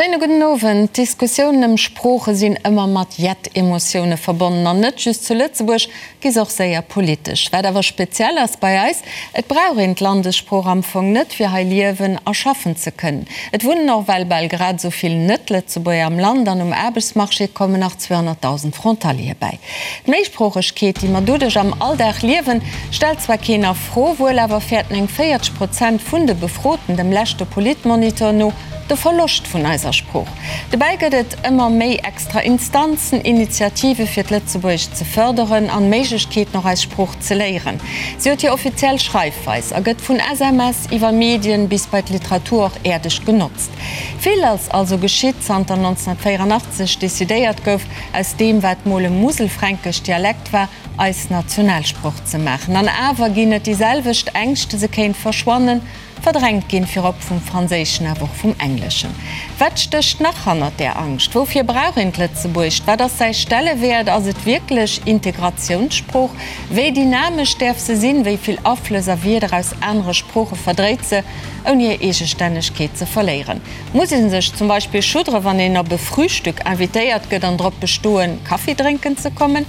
Schéine gudden Owend. D'Diskussiounen ëm Sprooche sinn ëmmer mat jett Emotioune verbonnen. An net just zu Lëtzebuerg gi se och séier politesch. Wat awer speziell ass bei eis, Et brauch een d'Landessprooch am Fong net, fir hei liewen a schaffen ze kënnen. Et wunnen och well bal grad esou vill Net-Lëtzebuerger am Land an um Aarbechtsmarché kommen nach 200.000 Frontaliere bäi. D'Méisproochegkeet, déi mer doduerch am Alldag liewen, stellt zwar keen a Fro, wuel awer fäerten eng 40 Prozent vun de Befroten dem leschte Politmonitor no de Verloscht vun eiser Sprooch. Dobäi gëtt et ëmmer méi extra Instanzen, Initiative fir d'Lëtzebuergescht ze fërderen an Méiglechkeeten och eis Sprooch ze léieren. Si huet hir offiziell Schreifweis a gëtt vun SMS iwwer Medien bis bei d'Literatur och äerdeg genotzt. Vill ass also geschitt zanter 1984 decidéiert gouf, aus deem wat mol e muselfränkesch Dialekt war, eis Nationalsproch ze maachen. An awer ginn et déi selwecht Ängschte, se kéint verschwannen, verdrängt ginn, virop vum Franséischen, awer och vum Engleschen. Wat stécht nach hannert där Angscht? Woufir brauch een d'Lëtzebuergescht? Wat ass säi Stellewäert? Ass et wierklech Integratiounssprooch? Wéi dynamesch däerf se sinn? Wéi vill Aflëss a Wierder aus anere Sprooche verdréit se, ouni hir Eegestännegkeet ze verléieren? Muss ee sech zum Beispill schuddere wann een op e Frühstück invitéiert gëtt an drop bestoen, Kaffi drénken ze kommen?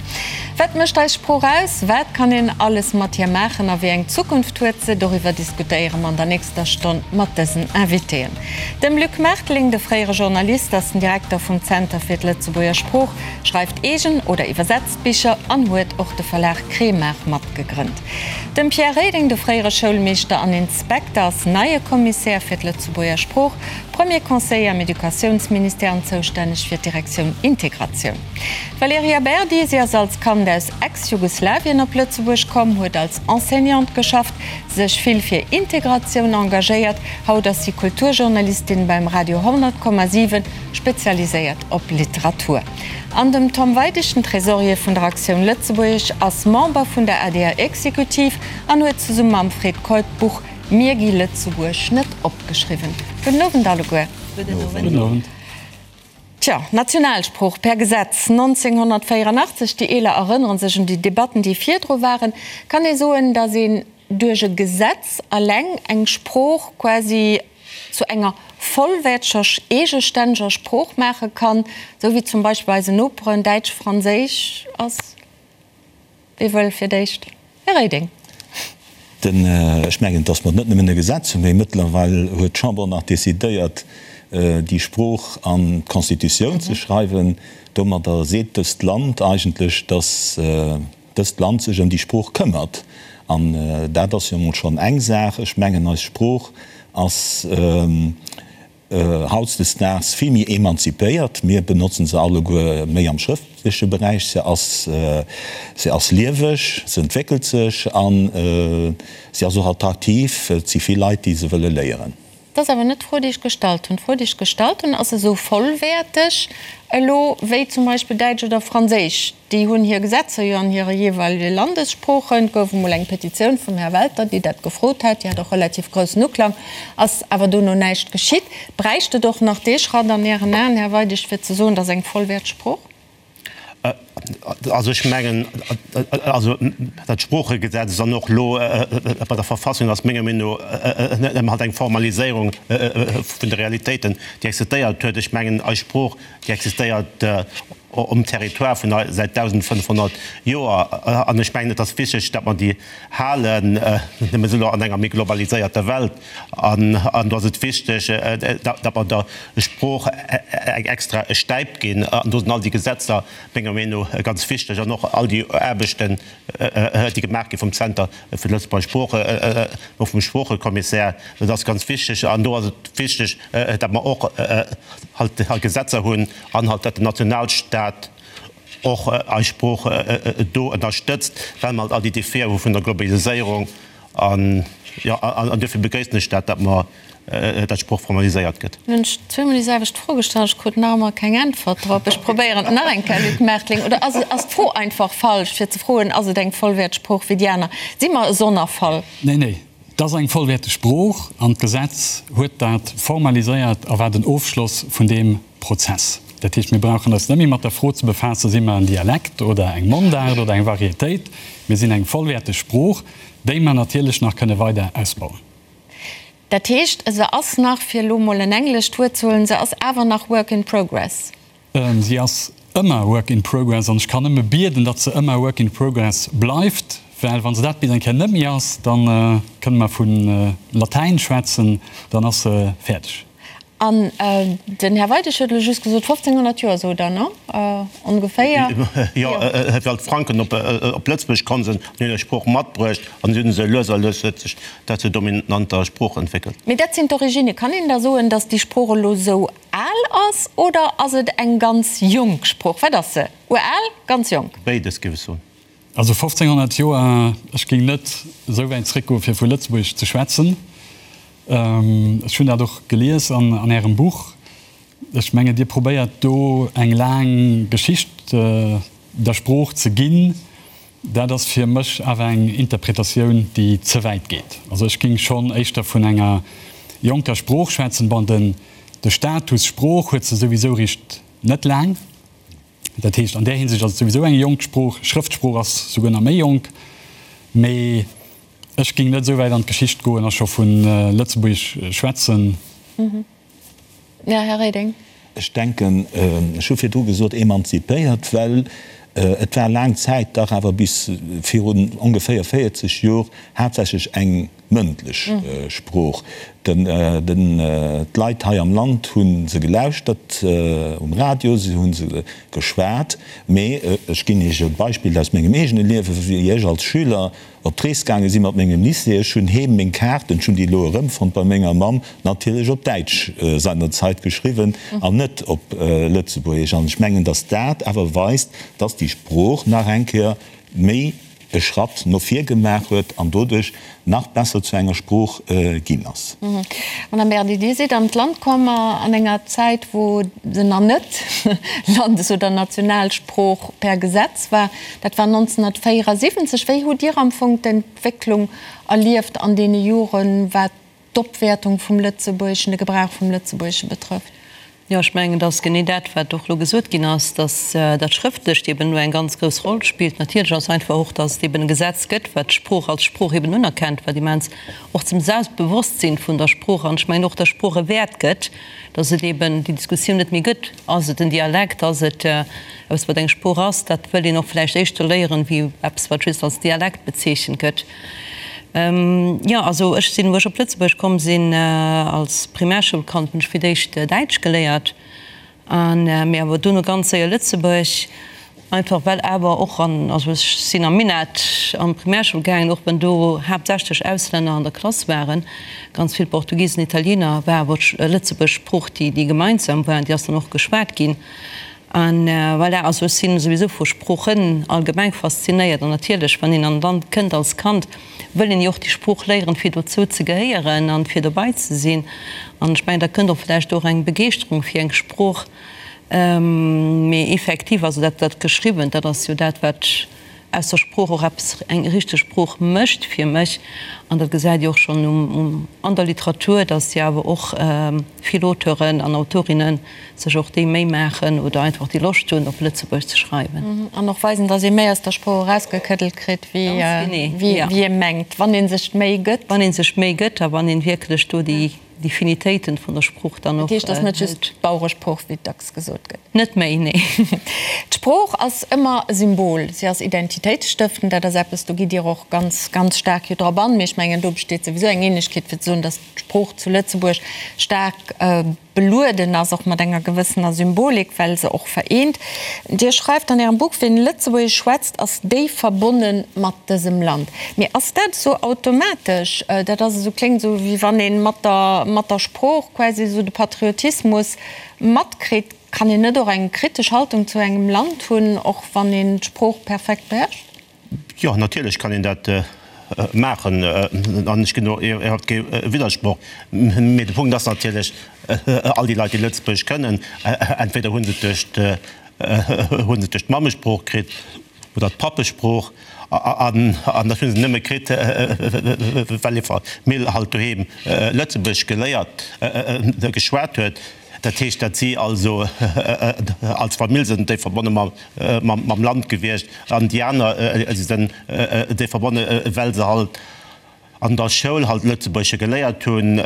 Wat mécht eis Sprooch aus? Wat kann een alles mat hir maachen a wéi eng Zukunft huet se? Doriwwer diskutéiere mer an der nächster Stonn mat dësen Invitéen. Dem Luc Mertling, de fréiere Journalist, ass den Direkter vum Zenter fir d'Lëtzebuerger Sprooch, schreift eegen oder iwwersetzt Bicher an huet och de Verlag Kremart matgegrënnt. Dem Pierre Reding, de fréiere Schoulmeeschter an Inspekter, ass neie Kommissär fir d'Lëtzebuerger Sprooch, Premier Conseiller am Educatiounsministère an zoustänneg fir d'Direktioun Integratioun. D'Valerija Berdi, si ass als Kand aus Ex-Jugoslawien op Lëtzebuerg komm, huet als Enseignante geschafft, sech vill fir Integratioun engagéiert. Haut ass si Kulturjournalistin beim Radio 100,7, spezialiséiert op Literatur. An dem Tom Weidig, den Trésorier vun der Actioun Lëtzebuergesch, ass Member vun der ADR-Exekutiv an huet zesumme mam Fred Keup d'Buch Mir gi Lëtzebuerg net op geschriwwen. Gudden Owend alleguer. Gudden Owend. Tja, Nationalsprooch per Gesetz 1984, déi Eeler erënnere sech un déi Debatten, déi virdru waren. Kann ee soen, datt een duerch e Gesetz alleng eng Sprooch quasi zu enger vollwäerteger, eegestänneger Sprooch maache kann, esou wéi zum Beispill bei eisen Noperen Däitsch, Franséisch ass? Wie wëll fir d'éischt? Här Reding. Den, ech mengen, dass mer net nëmmen e Gesetz hunn, mee mëttlerweil huet d'Chamber och nach decidéiert, déi Sprooch an d'Constitutioun ze schreiwen. Domadder seet dëst Land eigentlech, dass dëst Land sech ëm déi Sprooch këmmert. An dat ass jo emol schonn eng Saach. Ech mengen, eis Sprooch ass hautdesdaags vill méi emanzipéiert. Mir benotzen se alleguer méi am schrëftleche Beräich. Se ass, se ass lieweg, se entwéckelt sech a se ass och attraktiv. Et si vill Leit, déi se wëlle léieren. Dat ass awer net d'Fro, déi ech gestallt hunn. D'Fro, déi ech gestallt hunn, Ass se esou vollwäerteg elo wéi zum Beispill Däitsch oder Franséisch? Déi hunn hir Gesetzer jo an hire jeeweilege Landessproochen. Et gouf emol eng Petitioun vum Här Welter, déi dat gefrot hat. Déi hat och relativ groussen Uklang. Ass awer dono näischt geschitt. Bräicht et och nach dee Schratt an Ären Aen, Här Weidig, fir ze soen, dat ass eng vollwäerteg Sprooch? Also ech mengen, also dat Sproochegesetz an och elo bei der Verfassung ass menger Meenung no nëmme halt eng Formaliséierung vun de Realitéiten, déi existéiert huet. Ech mengen, eis Sprooch, déi existéiert um Territoire vun eis säit 1.500 Joer an ech mengen, et ass wichteg, datt mer déi halen. Mir sinn elo an enger méi globaliséierter Welt an do ass et wichteg, datt mer der Sprooch eng extra Stäip ginn. An do sinn all déi Gesetzer menger Meenung no ganz wichteg an och all déi Aarbechten, déi gemaach gi vum Zenter fir d'Lëtzebuerger Sprooch, och vum Sproochekommissär. Dat ass ganz wichteg. An do ass et wichteg, datt mer och halt Gesetzer hunn an halt, datt den Nationalstaat och eis Sprooch do ënnerstëtzt, well mer halt all déi Defie hu vun der Globaliséierung. An jo, an duerfir begréissen ech dat, datt mer, datt d'Sprooch formaliséiert gëtt. Hunn ech zweemol déi selwecht Fro gestallt, ech krut nach ëmmer keng Äntwert drop. Ech probéieren et nach eng Kéier, Luc Mertling. Oder ass, ass d'Fro einfach falsch, fir ze froen, ass et eng vollwäerteg Sprooch wéi déi aner? Si mer e Sonnerfall? Nee, nee, et ass eng vollwäerteg Sprooch an d'Gesetz huet dat formaliséiert a war den Ofschloss vun deem Prozess. Dat heescht, mir brauchen eis net méi mat der Fro ze befaassen, si mer en Dialekt oder eng Mondaart oder eng Varietéit. Mir sinn eng vollwäerteg Sprooch, déi mer natierlech nach kënne weider ausbauen. Dat heescht, se ass nach, fir elo mol en englescht Wuert ze huelen, se ass awer nach work in progress. Si ass ëmmer work in progress an ech kann nëmme bieden, datt se ëmmer work in progress bleift, well wa se dat bis eng Kéier net méi ass, da kënne mer vu Latäin schwätzen, dann ass se fäerdeg. An den Här Weidig huet elo just gesot, 1500 Joer, sot Der, ne? Ongeféier. Jo, well d'Franken op Lëtzebuerg komm sinn an hunn hir Sprooch matbruecht an si hunn se lues a lues huet sech dat zur dominanter Sprooch entwéckelt. Mee dat sinn d'Originne. Kann een da soen, datt déi Sprooch elo esou al ass oder ass et eng ganz jonk Sprooch? Wat ass se? Ural? Ganz jonk? Béides, géif ech soen. Also 1500 Joer, ech géing net esou wäit zréckgoen, fir vu Lëtzebuerg ze schwätzen. Ech hunn dat och gelies an Ärem Buch. Ech mengen, Dir probéiert do eng laang Geschicht der Sprooch ze ginn. Dat ass fir mech awer eng Interpretatioun, déi ze wäit geet. Also ech géing schonn éischter vun enger jonker Sprooch schwätzen. Bon, den de Status Sprooch huet se souwisou richt net laang. Dat heescht, an där Hinsicht ass et souwisou eng jonk Sprooch. Schrëftsprooch ass souguer nach méi jonk. Mee ech géing net esou wäit an d'Geschicht goen a scho vu Lëtzebuergesch schwätzen. Jo, Här Reding. Ech denken, ech hu virdru gesot emanzipéiert, well et war laang Zäit dach awer bis virun ongeféier 40 Jor haaptsächlech eng mëndlech Sprooch. D'Leit hei am Land hu se gelauschtert um Radio, se hu se geschwat. Mee ech ginn Iech e Beispill aus mengem eegene Liewen, Wéi ech als Schüler op d'Rees gaange si mat mengem Lycée, ech hunn heem meng Kaarten, ech hunn déi elo erëmfonnt bei menger Mamm, natierlech op Däitsch seinerzeit geschriwwen an net op Lëtzebuergesch. An ech mengen, datt dat awer weist, datt déi Sprooch nach eng Kéier méi e Schratt no vir gemaach huet an doduerch nach besser zu enger Sprooch ginn ass. Madame Berdi, Dir sidd an d'Land komm an enger Zäit, wou se nach net Landes oder Nationalsprooch per Gesetz war. Dat war 1974. Wéi hutt Dir am Fong d'Entwécklung erlieft an deene Joren, wat d'Opwäertung vum Lëtzebuergeschen, de Gebrauch vum Lëtzebuergesche betrëfft? Jo, ech mengen, et ass genee dat, wat och elo gesot ginn ass, dass dat Schrëftlecht eben elo eng ganz grouss Roll spillt. Natierlech ass einfach och, dass et eben e Gesetz gëtt, wat d'Sprooch als Sprooch eben unerkennt, wat immens och zum Selbstbewosstsinn vun der Sprooch an ech mengen och der Sprooch e Wäert gëtt, dass et eben déi Diskussioun net méi gëtt, Ass et en Dialekt, ass et eppes, wat eng Sprooch ass? Dat wëll een och vläicht éischter léieren, wéi eppes, wat just als Dialekt bezeechent gëtt. Jo, also ech sinn, wou ech op Lëtzebuerg komm sinn als Primärschoulkand, hunn ech fir d'éischt Däitsch geléiert an mee awer dono ganz séier Lëtzebuerg, einfach well awer och an, also ech sinn am Minett an d'Primärschoul gaangen, och wenn do haaptsächlech Auslänner an der Klass waren, ganz vill Portugisen, Italiener, war awer d'Lëtzebuerg Sprooch déi déi gemeinsam war an déi ass dann och geschwat ginn. An voilà, also ech sinn souwisou vu Sproochen allgemeng faszinéiert an natierlech, wann een an e Land kënnt als Kand, wëll een jo och déi Sprooch léieren, fir dozou ze gehéieren an fir dobei ze sinn. An ech mengen, da kënnt och vläicht och eng Begeeschterung fir eng Sprooch. Mee effektiv, also dat, dat Geschriwwent, dat ass jo dat, wat aus der Sprooch och eppes, eng richteg Sprooch mécht fir mech. An dat gesäit Dir och schonn um, an der Literatur, datt jo awer och vill Auteuren an Autorinnen sech och déi Méi maachen oder einfach déi Loscht hunn, op Lëtzebuergesch ze schreiwen. An och weisen, datt ee méi aus der Sprooch erausgekëddelt kritt, wéi ee mengt, wann ee sech d'Méi gëtt. Wann ee sech d'Méi gëtt a wann een wierklech do déi Finitéiten vun der Sprooch dann och Dat heescht, et ass net just d'Baueresprooch, wéi dacks gesot gëtt. Net méi, nee. D'Sprooch ass ëmmer e Symbol, si ass identitéitsstëftend. Dat ass eppes, do gitt Dir och ganz, ganz staark jo drop an. Mee ech mengen, do besteet souwisou eng Ähnlechkeet, fir ze soen, datt d'Sprooch zu Lëtzebuerg staark belueden ass, och mat enger gewëssener Symbolik, well se och vereent. Dir schreift an Ärem Buch, Wien Lëtzebuergesch schwätzt, ass déif verbonne mat dësem Land. Mee ass dat esou automatesch? Dat ass esou, kléngt esou, wéi wann ee mat der, mat der Sprooch quasi esou de Patriotismus matkritt. Kann een net och eng kritesch Haltung zu engem Land hunn, och wann een d'Sprooch perfekt beherrscht? Jo, natierlech kann een dat maachen an ech ginn do iwwerhaapt kee Widdersproch. Mee de Punkt ass natierlech, all déi Leit, déi Lëtzebuergesch kënnen, entweder hu se et duerch, hu se et duerch d'Mammesprooch kritt oder d'Pappesprooch an dat hu se nëmme kritt, well hir Famill halt doheem Lëtzebuergesch geléiert, geschwat huet. Dat heescht, dat si also als Famill sinn déi verbonne mam Land gewiescht an déi aner si sinn déi verbonne well se halt. an der Schoul halt Lëtzebuergesche geléiert hunn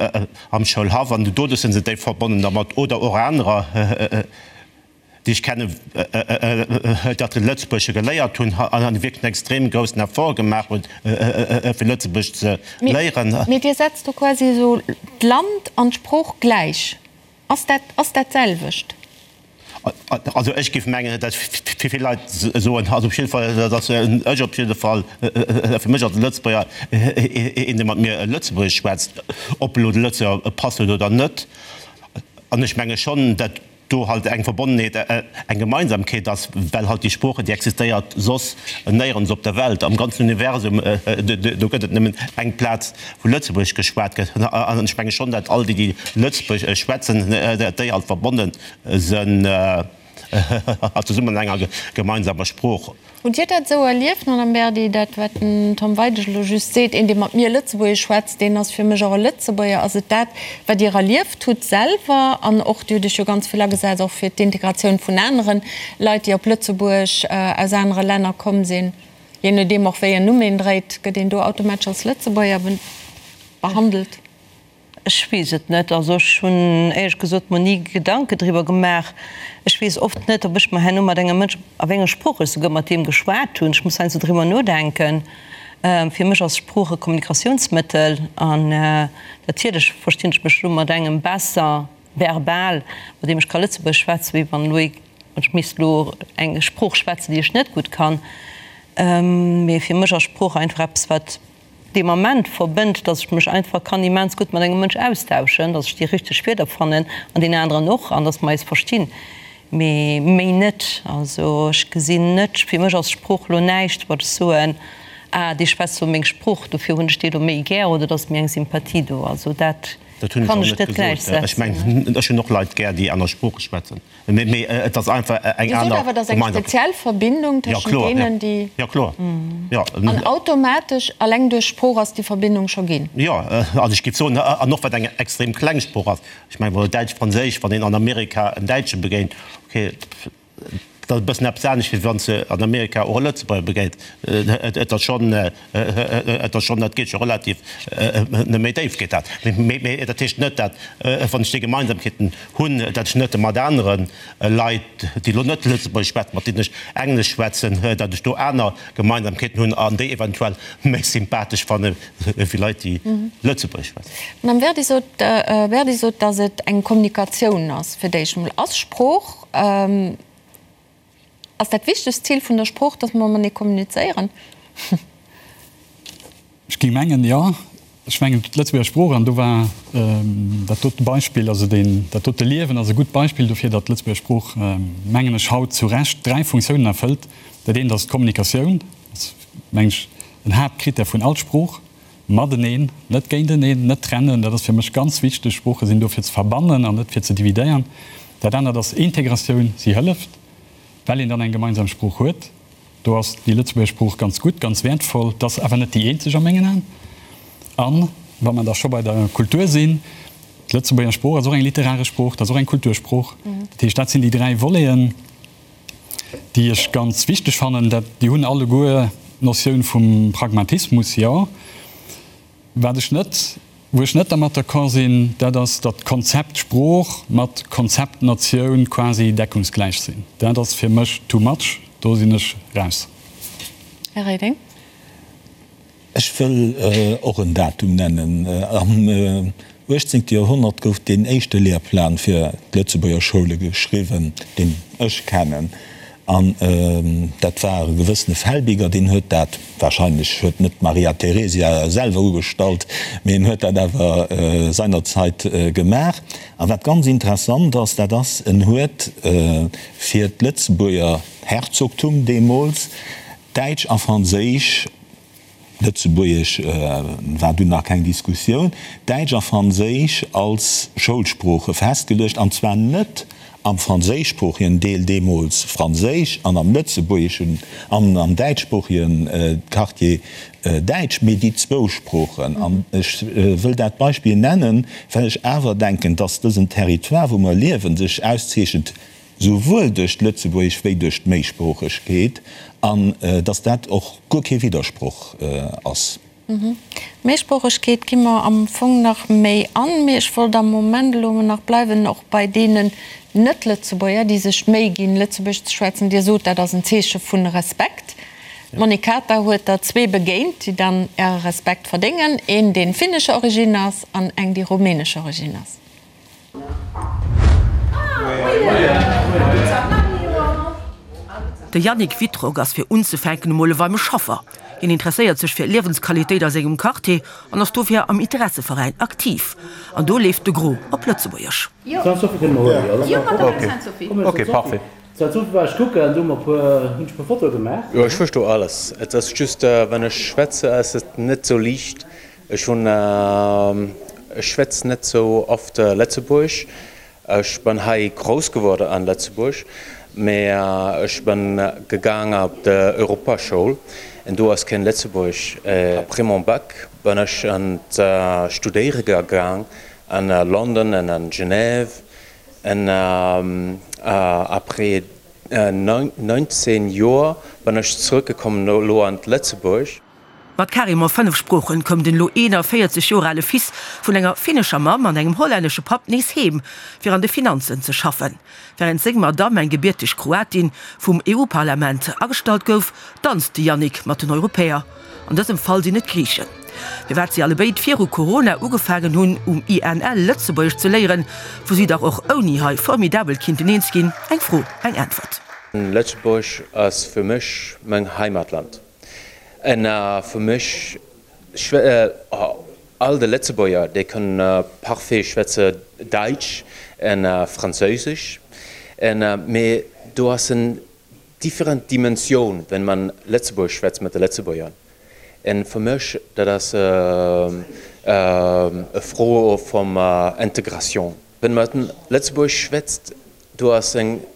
am Schoulhaff an doduerch sinn se déif verbonnen dermat oder och anerer, déi ech kennen, datt se Lëtzebuergesche geléiert hunn an wierklech en extrem groussen Effort gemaach hunn, fir Lëtzebuergesch ze léieren. Mee Dir setzt do quasi esou d'Land an d'Sprooch gläich. Ass dat, ass dat d'selwecht? Also ech géif mengen, datt fir vill Leit soen, also op jidde Fall, datt ech op jidde Fall, fir mech als Lëtzebuerger, een dee mat mir Lëtzebuergesch schwätzt, ob elo de Lëtzebuerger Pass huet oder net, an ech menge schonn, datt do halt eng Verbonnenheet, eng Gemeinsamkeet ass, well halt déi Sprooche, déi existéiert soss néierens op der Welt, am ganzen Universum, do gëtt et nëmmen eng Plaz, wou Lëtzebuergesch geschwat gëtt. An ech menge schonn, datt all déi, déi Lëtzebuergesch schwätzen, datt déi halt verbonne sënn zesummen an enger gemeinsamer Sprooch. Hutt Dir dat esou erlieft, Madame Berdi, dat wat den Tom Weidig elo just seet, een dee mat mir Lëtzebuergesch schwätzt, deen ass fir mech och e Lëtzebuerger. Ass et dat wat Dir erlieft hutt selwer? An och, Dir hutt Iech jo ganz vill agesat och fir d'Integratioun vun anere Leit, déi op Lëtzebuerg aus anere Länner komm sinn. Jee nodeem och wéi en Numm een dréit, gëtt een do automatesch als Lëtzebuerger behandelt. Ech weess et net. Also ech hunn éierlech gesot mer ni Gedanke driwwer gemaach. Ech weess oft net, ob ech mer herno mat engem Mënsch, a wéi enger Sprooch ech souguer mat deem geschwat hunn. Ech muss heiansdo driwwer nodenken. Fir mech ass Sprooch e Kommunikatiounsmëttel an natierlech verstinn ech mech elo mat engem besser verbal, mat deem ech ka Lëtzebuergesch schwätzen, wéi wann elo ee, ech misst elo eng Sprooch schwätzen, déi ech net gutt kann. Mee fir mech ass Sprooch einfach eppes, wat dee Moment verbënnt, dass ech mech einfach kann immens gutt mat engem Mënsch austauschen, dass ech déi richteg Wierder fannen an deen aneren och an dass mer eis verstinn, mee méi net. Also ech gesinn net, fir mech ass Sprooch elo näischt, wat ech soen, ah dee schwätzt elo meng Sprooch, dofir hunn ech dee elo méi gär oder et ass méi eng Sympathie do. Also dat Dat hunn ech kann och ech net net gesot. Ech gläichsetzen. mengen, ech hunn och Leit gär, déi aner Sprooche schwätzen. Mee et ass einfach eng Dir sot aner awer, et ass eng Gemeinsamkeet. speziell Verbindung Ja, tëschent kloer, ja. deenen, déi. Ja, kloer. Ja. An automatesch, alleng duerch Sprooch ass déi Verbindung scho ginn. Jo, also ech géif soen, an och wat eng extrem kleng Sprooch ass, ech mengen, wa Däitsch, Franséisch, wann een an Amerika en Däitsche begéint, okay, dat ass e bëssen eppes anescht, wéi wann s de an Amerika och e Lëtzebuerger begéint. Et ass schonn, et ass schonn, dat geet scho relativ méi déif geet dat. Mee dat heescht net, dat wann ech déi Gemeinsamkeeten hunn, dat ech net mat anere Leit, déi elo net Lëtzebuergesch schwätzen, mat deenen ech Englesch schwätzen, datt ech do aner Gemeinsamkeeten hunn an déi eventuell méi sympathesch fanne wéi Leit, déi Lëtzebuergesch schwätzen. D'Madame Verdi sot, Verdi sot, datt et eng Kommunikatioun ass fir d'éischt emol. Ass Sprooch, Ass dat wichtegst Zil vun der Sprooch, dass mer matenee kommunizéieren? Ech géing mengen, jo. Ech mengen, d'Lëtzebuerger Sprooch, an do war dat dote Beispill, also deen, dat dote Liewen ass e gutt Beispill dofir, datt d'Lëtzebuerger Sprooch, mengen ech, haut zu Recht dräi Funktiounen erfëllt. Dat eent ass d'Kommunikatioun, dat ass, mengen ech, en Haaptkrittär vun all Sprooch. Mateneen, net géinteneen, net trennen, dat ass fir mech ganz wichteg. Sprooche sinn do fir ze verbannen an net fir ze dividéieren. Dat anert ass Integratioun, si hëlleft, well een dann eng gemeinsam Sprooch huet. Do ass déi Lëtzebuerger Sprooch ganz gutt, ganz wäertvoll. Et ass awer net déi eenzeg a mengen Aen. An, wa mer da scho bei der Kultur sinn, d'Lëtzebuerger Sprooch ass och eng literaresch Sprooch, dat ass och eng Kultursprooch. Dat heescht, dat sinn déi dräi Voleten. déi ech ganz wichteg fannen, dat déi hunn alleguer d'Notioun vum Pragmatismus, jo. Wat ech net, wou ech net dermat d'accord sinn, dat ass, datt d'Konzept Sprooch mat Konzept Natioun quasi deckungsgläich sinn. Dat ass fir mech too much, do sinn ech raus. Här Reding. Ech wëll och en Datum nennen. Am 18. Joerhonnert gouf deen éischte Lehrplan fir d'Lëtzebuerger Schoule geschriwwen, deen ech kennen. An dat war e gewëssene Felbiger, deen huet dat, wahrscheinlech huet net d'Maria Theresia selwer ugestallt, mee en huet dat awer seinerzeit gemaach. A wat ganz interessant ass, dat ass, en huet fir d'Lëtzebuerger Herzogtum deemools Däitsch a Franséisch, Lëtzebuergesch war dunn nach keng Diskussioun, Däitsch a Franséisch als Schoulsprooche festgeluecht, an zwar net am franséischsproochegen Deel, deemools Franséisch, an am lëtzebuergeschen an am däitschsproochegen Quartier Däitsch, mee déi zwou Sproochen. An ech wëll dat Beispill nennen, well ech awer denken, dass dësen Territoire, wou mer liewen, sech auszeechent souwuel duerch d'Lëtzebuergesch wéi duerch d'Méisproochegkeet, an datt dat och guer kee Widdersproch ass. Méisproochegkeet gi mer am Fong nach méi an, mee ech wollt am Moment elo emol nach bleiwen och bei deenen Net-Lëtzebuerger, déi sech d'Méi ginn, Lëtzebuergesch ze schwätzen. Dir sot, dat ass en Zeeche vu Respekt. D'Monique Kater huet der zwee begéint, déi dann Äre Respekt verdéngen, een, dee finnescher Origine ass an eng, déi rumänescher Origine ass. De Yannick Wittrock ass fir unzefänken emol e warme Schaffer. Hien interesséiert sech fir Liewensqualitéit a sengem Quartier an ass dofir am Interesseveräin aktiv. An do leeft de Gros op Lëtzebuergesch. Jo, ech versto alles. Et ass just, wann ech schwätze, ass et net sou liicht. Ech hunn, ech schwätz net sou oft Lëtzebuergesch. Ech bin hei grouss geworden an Lëtzebuerg, mee ech bin gegaang op de Europaschoul en do ass keen Lëtzebuergesch. Après mon Bac bin ech an d'Studéiere gegaang an London en an Genève en après 19 Joer bin ech zrëckgekommen elo an Lëtzebuerg. Mat carrément 5 Sproochen koum den elo 41 Joer ale Fils vun enger finnescher Mamm an engem hollännesche Papp nees heem, fir an de Finanzen ze schaffen. Wärend seng Madamm, eng gebierteg Kroatin, vum EU-Parlament agestallt gouf, danzt de Yannick mat den Europäer. An dësem Fall sinn et d'Griichen. Firwat si allebéid viru Corona ugefaangen hunn, um INL Lëtzebuergesch ze léieren, wou si dach och ouni hei formidabel kinnten eens ginn, eng Fro, eng Äntwert. Lëtzebuerg ass fir mech meng Heimatland. En fir mech, all de Lëtzebuerger, déi kënnen parfait schwätze Däitsch en Franséisch, en mee do ass en different Dimensioun, wenn man Lëtzebuergesch schwätzt mat de Lëtzebuerger. En fir mech, dat ass e Fro vum Integration. Wenn man Lëtzebuergesch schwätzt, do ass eng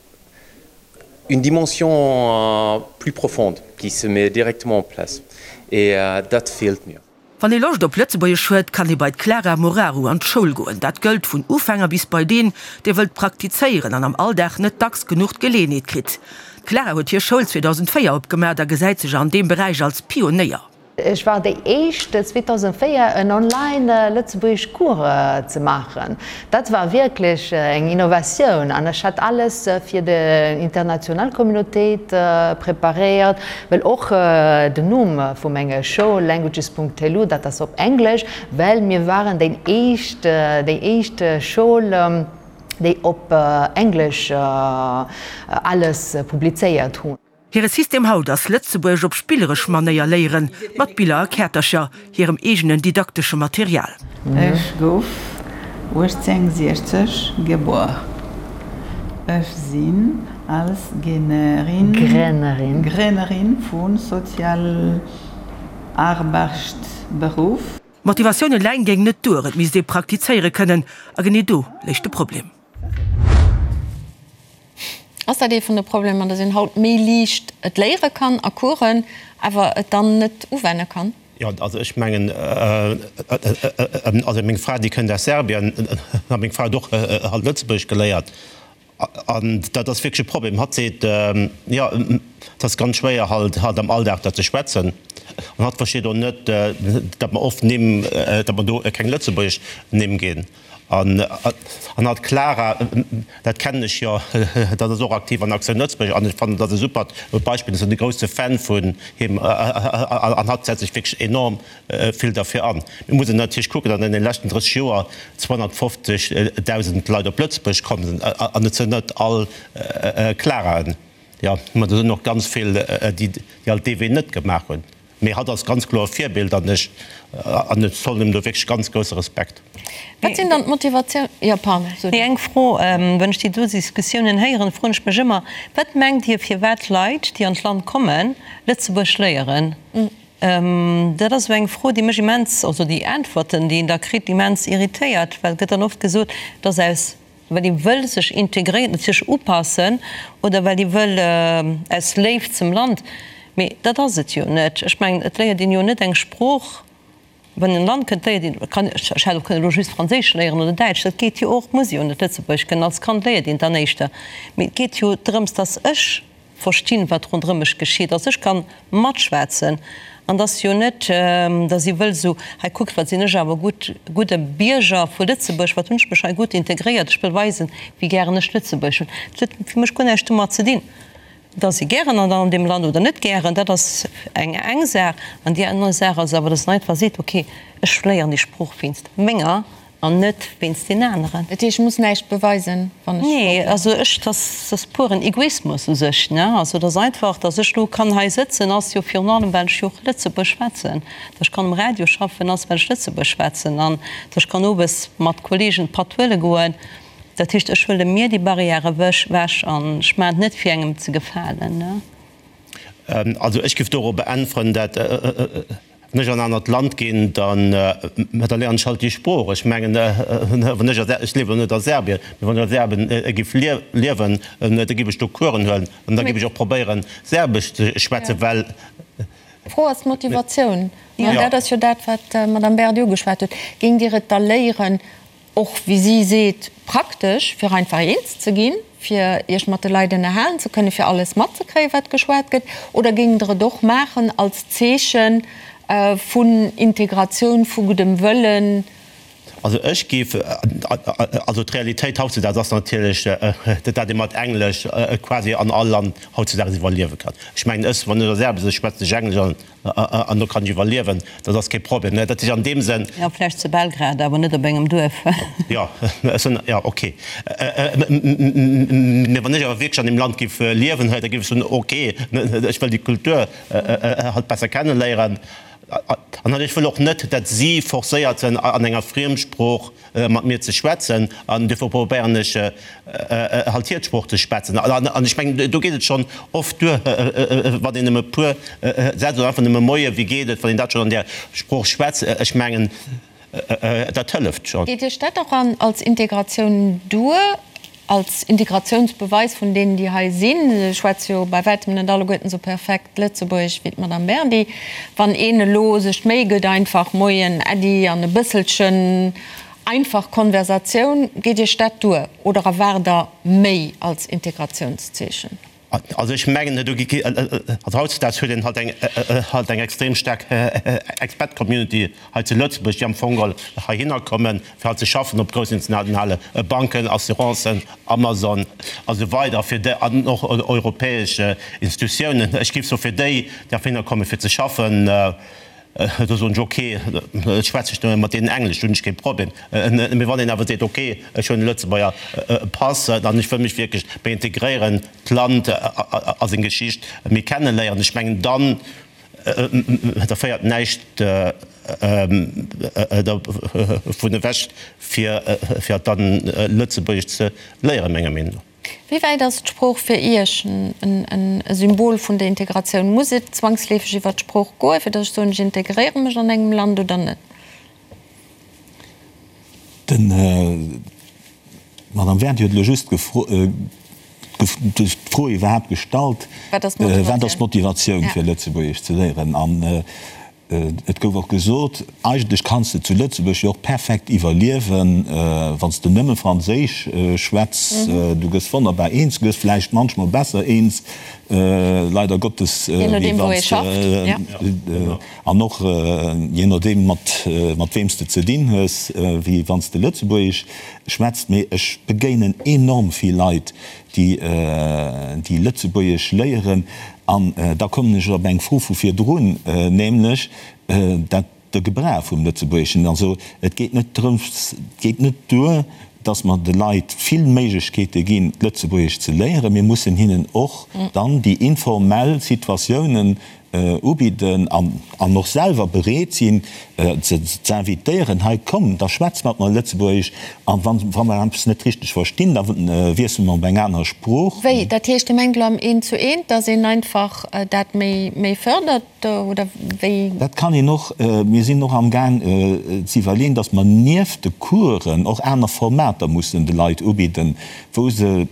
une dimension plus profonde qui se met directement en place et dat feelt mir. Wann ee Loscht op Lëtzebuergesch huet, kann ee bei d'Clara Moraru an d'Schoul goen. Dat gëllt vun Ufänger bis bei deen, dee wëllt praktizéieren an am Alldag net dacks genuch d'Geleeënheet kritt. D'Clara huet hir Schoul 2004 opgemaacht a gesäit sech an deem Beräich als Pionéier. Ech war déi éischt 2004 en online lëtzebuergesch Cours ze maachen. Dat war wierklech eng Innovatioun an ech hat alles fir déi international Communautéit preparéiert, well och den Numm vu menger Schoul languages.lu, dat ass op Englesch, well mir waren déi éischt, déi éischt Schoul, déi op Englesch alles publizéiert hunn. Hire System haut ass Lëtzebuergesch op spilleresch Manéier léieren, mat Biller a Käertercher, hirem eegenen didaktesche Material. Ech gouf 1860 gebuer. Ech sinn als Grénnerin vu Sozialarbechtberuff. Motivatioun eleng géing net duer, et misst ee praktizéiere kënnen. A genee do léich de Problem. Ass dat ee vun de Problemer, datt een haut méi liicht et léiere kann a Coursen, awer et dann net uwenne kann? Jo, also ech mengen, also meng Fra, déi kënnt aus Serbien, a meng Fra huet och halt Lëtzebuergesch geléiert, an dat ass wierklech e Problem. Hatt seet, jo, et ass ganz schwéier halt halt am Alldag dat ze schwätzen, an hatt versteet och net, datt mer oft Nimm, datt mer do keng lëtzebuergesch Nimm ginn. An hatt d'Clara, dat kennen ech jo, dat ass och aktiv an Aktioun Lëtzebuerg an ech fannen, dat ass e supert Beispill. Ech sinn e grousse Fan vun him an hatt setzt sech wierklech enorm vill derfir an. Mir mussen natierlech kucken, datt an deene leschten 30 Joer 250.000 Leit op Lëtzebuerg komm sinn an et sinn net all Claraen. Jo, mä do sinn och ganz vill, déi alt dee Wee net gemaach hunn. Mee hatt ass ganz kloer e Virbild an ech an ech zollen him do wierklech ganz grousse Respekt. Wat sinn dann d'Motivatioun, jo pardon, sot. Nee, eng Fro, Wann ech déi do Diskussiounen héieren, froen ech mech ëmmer, Wat mengt Dir, firwat Leit, déi an d'Land kommen, Lëtzebuerg léieren? Dat ass esou eng Fro, déi mech immens, also déi Äntwerten, déi een da kritt, immens irritéiert, well et gëtt dann oft gesot, et ass aus Well ee wëll sech integréieren, sech upassen oder well ee wëll aus Léift zum Land. Mee dat ass et jo net. Ech mengen, et léiert een jo net eng Sprooch, wann een an e Land kënnt, léiert een, kann, ech hätt och kënnen elo just Franséisch léieren oder Däitsch, dat geet jo och, muss ee jo net Lëtzebuergesch kënnen. Als Kand léiert een dann éischter. Mee et geet jo drëms, datt ech verstinn, wat ronderëm mech geschitt, datt ech ka matschwätzen. An et ass jo net, datt ee wëll esou, hei kuckt, wat sinn ech awer gutt, gudde Bierger vu Lëtzebuerg, wat hunn ech mech hei gutt integréiert, ech wëll weisen, wéi gären ech Lëtzebuerg hunn. Dat huet fir mech guer näischt domat ze dinn, datt ee gären an deem Land oder net gären, dat ass eng eng Saach. An déi aner Saach ass awer, datt een einfach seet, okay, ech léieren déi Sprooch wéinst menger An net wéinst den aneren. Dat heescht, ech muss näischt beweisen, wann ech Nee, also ech, dass ass puren Egoismus u sech, ne. Also et ass einfach, dass ech elo kann hei sëtzen, ass jo virun allem, well ech jo och Lëtzebuerg schwätzen. Dass ech kann um Radio schaffen, ass, well ech Lëtzebuerg schwätzen. An dass ech kann owes mat Kollegen Patt huele goen. Dat heescht, ech huele mir déi Barrière ewech an ech maachen et net, fir engem ze gefalen, ne. Also ech géif dorobber äntweren, dat wann ech an en anert Land ginn, dann da léieren ech halt déi Sprooch. Ech mengen, wann ech a, ech liewen elo net a Serbien, mee wann ech a Serbien géif liewen, da géif ech do Coursen huelen an da géif ech och probéieren, Serbesch ze schwätzen, well. D'Fro ass d'Motivatioun. An dat ass jo dat, wat d'Madame Baird ugeschwat huet. Géingt Dir et da léieren, Och, wéi si seet, praktesch, fir einfach eens ze ginn, fir Iech mat de Leit ënnerhalen ze kënnen, fir alles matzekréien, wat geschwat gëtt? Oder géingt Der et och maachen als Zeeche vun Integratioun, vu guddem Wëllen? Also ech géif, also d'Realitéit hautzedaags ass natierlech, datt ee mat Englesch quasi an all Land hautzedaags iwwerliewe kann. Ech mengen, ech, wann ech a Serbien sinn, schwätzen ech Englesch an An do kann ech iwwerliewen, dat ass kee Problem. Dat ass an deem Sënn. Jo, vläicht zu Belgrad, awer net op engem Duerf. Jo, ech soen, jo, ok. Mee wann ech awer wierklech an deem Land géif liewen, da géif ech soen, ok, ech wëll déi Kultur halt besser kenneléieren. An ech wëll och net, datt si forcéiert sinn, an enger Friemsprooch mat mir ze schwätzen an duerfir probéieren ech halt hir d'Sprooch ze schwätzen. An ech mengen, do geet et schonn oft duer, wann een nëmme e puer Sätz oder einfach nëmme Moie, wéi geet et, wann een dat schonn an där Sprooch schwätzt, ech mengen, dat hëlleft schonn. Geet Iech dat och an als Integratioun duer, als Integratiounsbeweis vun deenen, déi hei sinn? Se schwätze jo bei wäitem net alleguerten esou perfekt Lëtzebuergesch wéi d'Madame Berdy. Wann een elo sech d'Méi gëtt, einfach Moien, Äddi an e bësselchen einfach Konversatioun, geet Iech dat duer oder erwaart Der méi als Integratiounszeechen? Also ech mengen, do gi, also hautzedaags huet een halt eng, halt eng extrem staark Expat-Community hei zu Lëtzebuerg, déi am Fong all heihinner kommen, fir halt ze schaffen op groussen internationale Banken, Assurancen, Amazon a sou weider, fir déi, an och europäesch Institutiounen. Ech géif soe fir déi, déi heihinner kommen, fir ze schaffen, Do soen ech, ok, ech schwätze ech mat deenen Englesch, do hunn ech kee Problem. Mee wann een awer seet, ok, ech hunn e Lëtzebuerger Pass an ech wëll mech wierklech méi integréieren, d'Land a seng Geschicht méi kenneléieren, ech mengen, dann, da féiert näischt dervun ewech, fir dann Lëtzebuergesch ze léieren, menger Meenung no. Wéi wäit ass d'Sprooch fir Iech e Symbol vun der Integratioun? Muss et zwangsleefeg iwwer d'Sprooch goen, fir datt ech soen, ech integréiere mech an engem Land oder net? D'Madame Wernt huet elo just d'Fro iwwerhaapt gestallt, Wat ass d'Motivatioun, fir Lëtzebuergesch ze léieren? An Et gouf och gesot, eigentlech kanns de zu Lëtzebuerg jo och perfekt iwwerliewen, wann s de nëmme Franséisch schwätz. Du gëss wonnerbar eens, du gëss vläicht manchmol besser eens, leider Gottes, wéi wann s de, an och jee nodeem mat weem s de ze dinn hues, wéi wann s de Lëtzebuergesch schwätzt. Mee ech begéinen enorm vill Leit, déi Lëtzebuergesch léieren. An da kommen ech op eng Fro vu virdrun, nämlech dat de Gebrauch vum Lëtzebuergeschen. Also et geet net drëms, et geet net duer, dass mer de Leit vill Méiglechkeete ginn, d'Lëtzebuergesch ze léieren. Mir mussen hinnen och dann déi informell Situatiounen ubidden an och selwer bereet sinn, se ze invitéieren, hei komm, da schwätz mat mer Lëtzebuergesch, an wa mer eppes net richteg verstinn, da wiessele mer op eng aner Sprooch. Wéi? Dat heescht, Dir mengt elo am Eent zu Eent, datt een einfach dat méi fërdert, oder wéi? Dat kann een och. Mir sinn och amgaang ze iwwerleeën, datt mer nieft de Coursen och aner Formater mussen de Leit ubidden, wou se.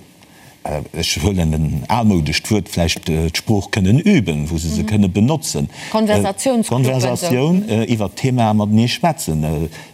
Ech huelen en almoudescht Wuert, vläicht d'Sprooch kënnen üben, wou se se kënne benotzen. Konversatioun, iwwert d'Themae matenee schwätzen.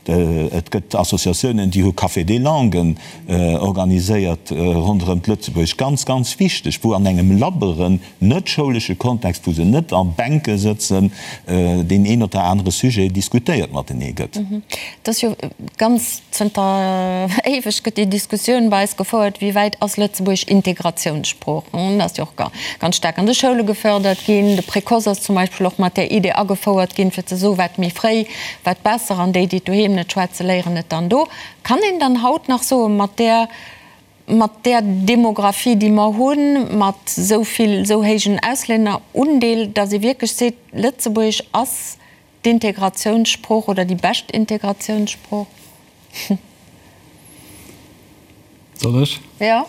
Et gëtt Associatiounen, déi hu Café des langues organiséiert ronderëm d'Lëtzebuergesch. Ganz, ganz wichteg, wou an engem labberen, net schoulesche Kontext, wou se net a Bänke sëtzen, deen een oder anere Sujet diskutéiert matenee gëtt. Et ass jo ganz Zënter éiweg gëtt déi Diskussioun bei eis gefouert, wéi wäit ass Lëtzebuergesch Integratiounssprooch? Dat ass jo och ganz staark an de Schoule gefördert ginn. De Précoce ass zum Beispill och mat där Idee agefouert ginn, fir ze soen, wat méi fréi, wat besser, an déi, déi et doheem net schwätzen, léieren et dann do. Kann een dann haut nach soen, mat där, mat där Demographie, déi mer hunn, mat esou vill, esou héijen Auslännerundeel, datt ee wierklech seet, Lëtzebuergesch ass D'Integratiounssprooch oder déi bescht Integratiounssprooch? Soll ech? Jo.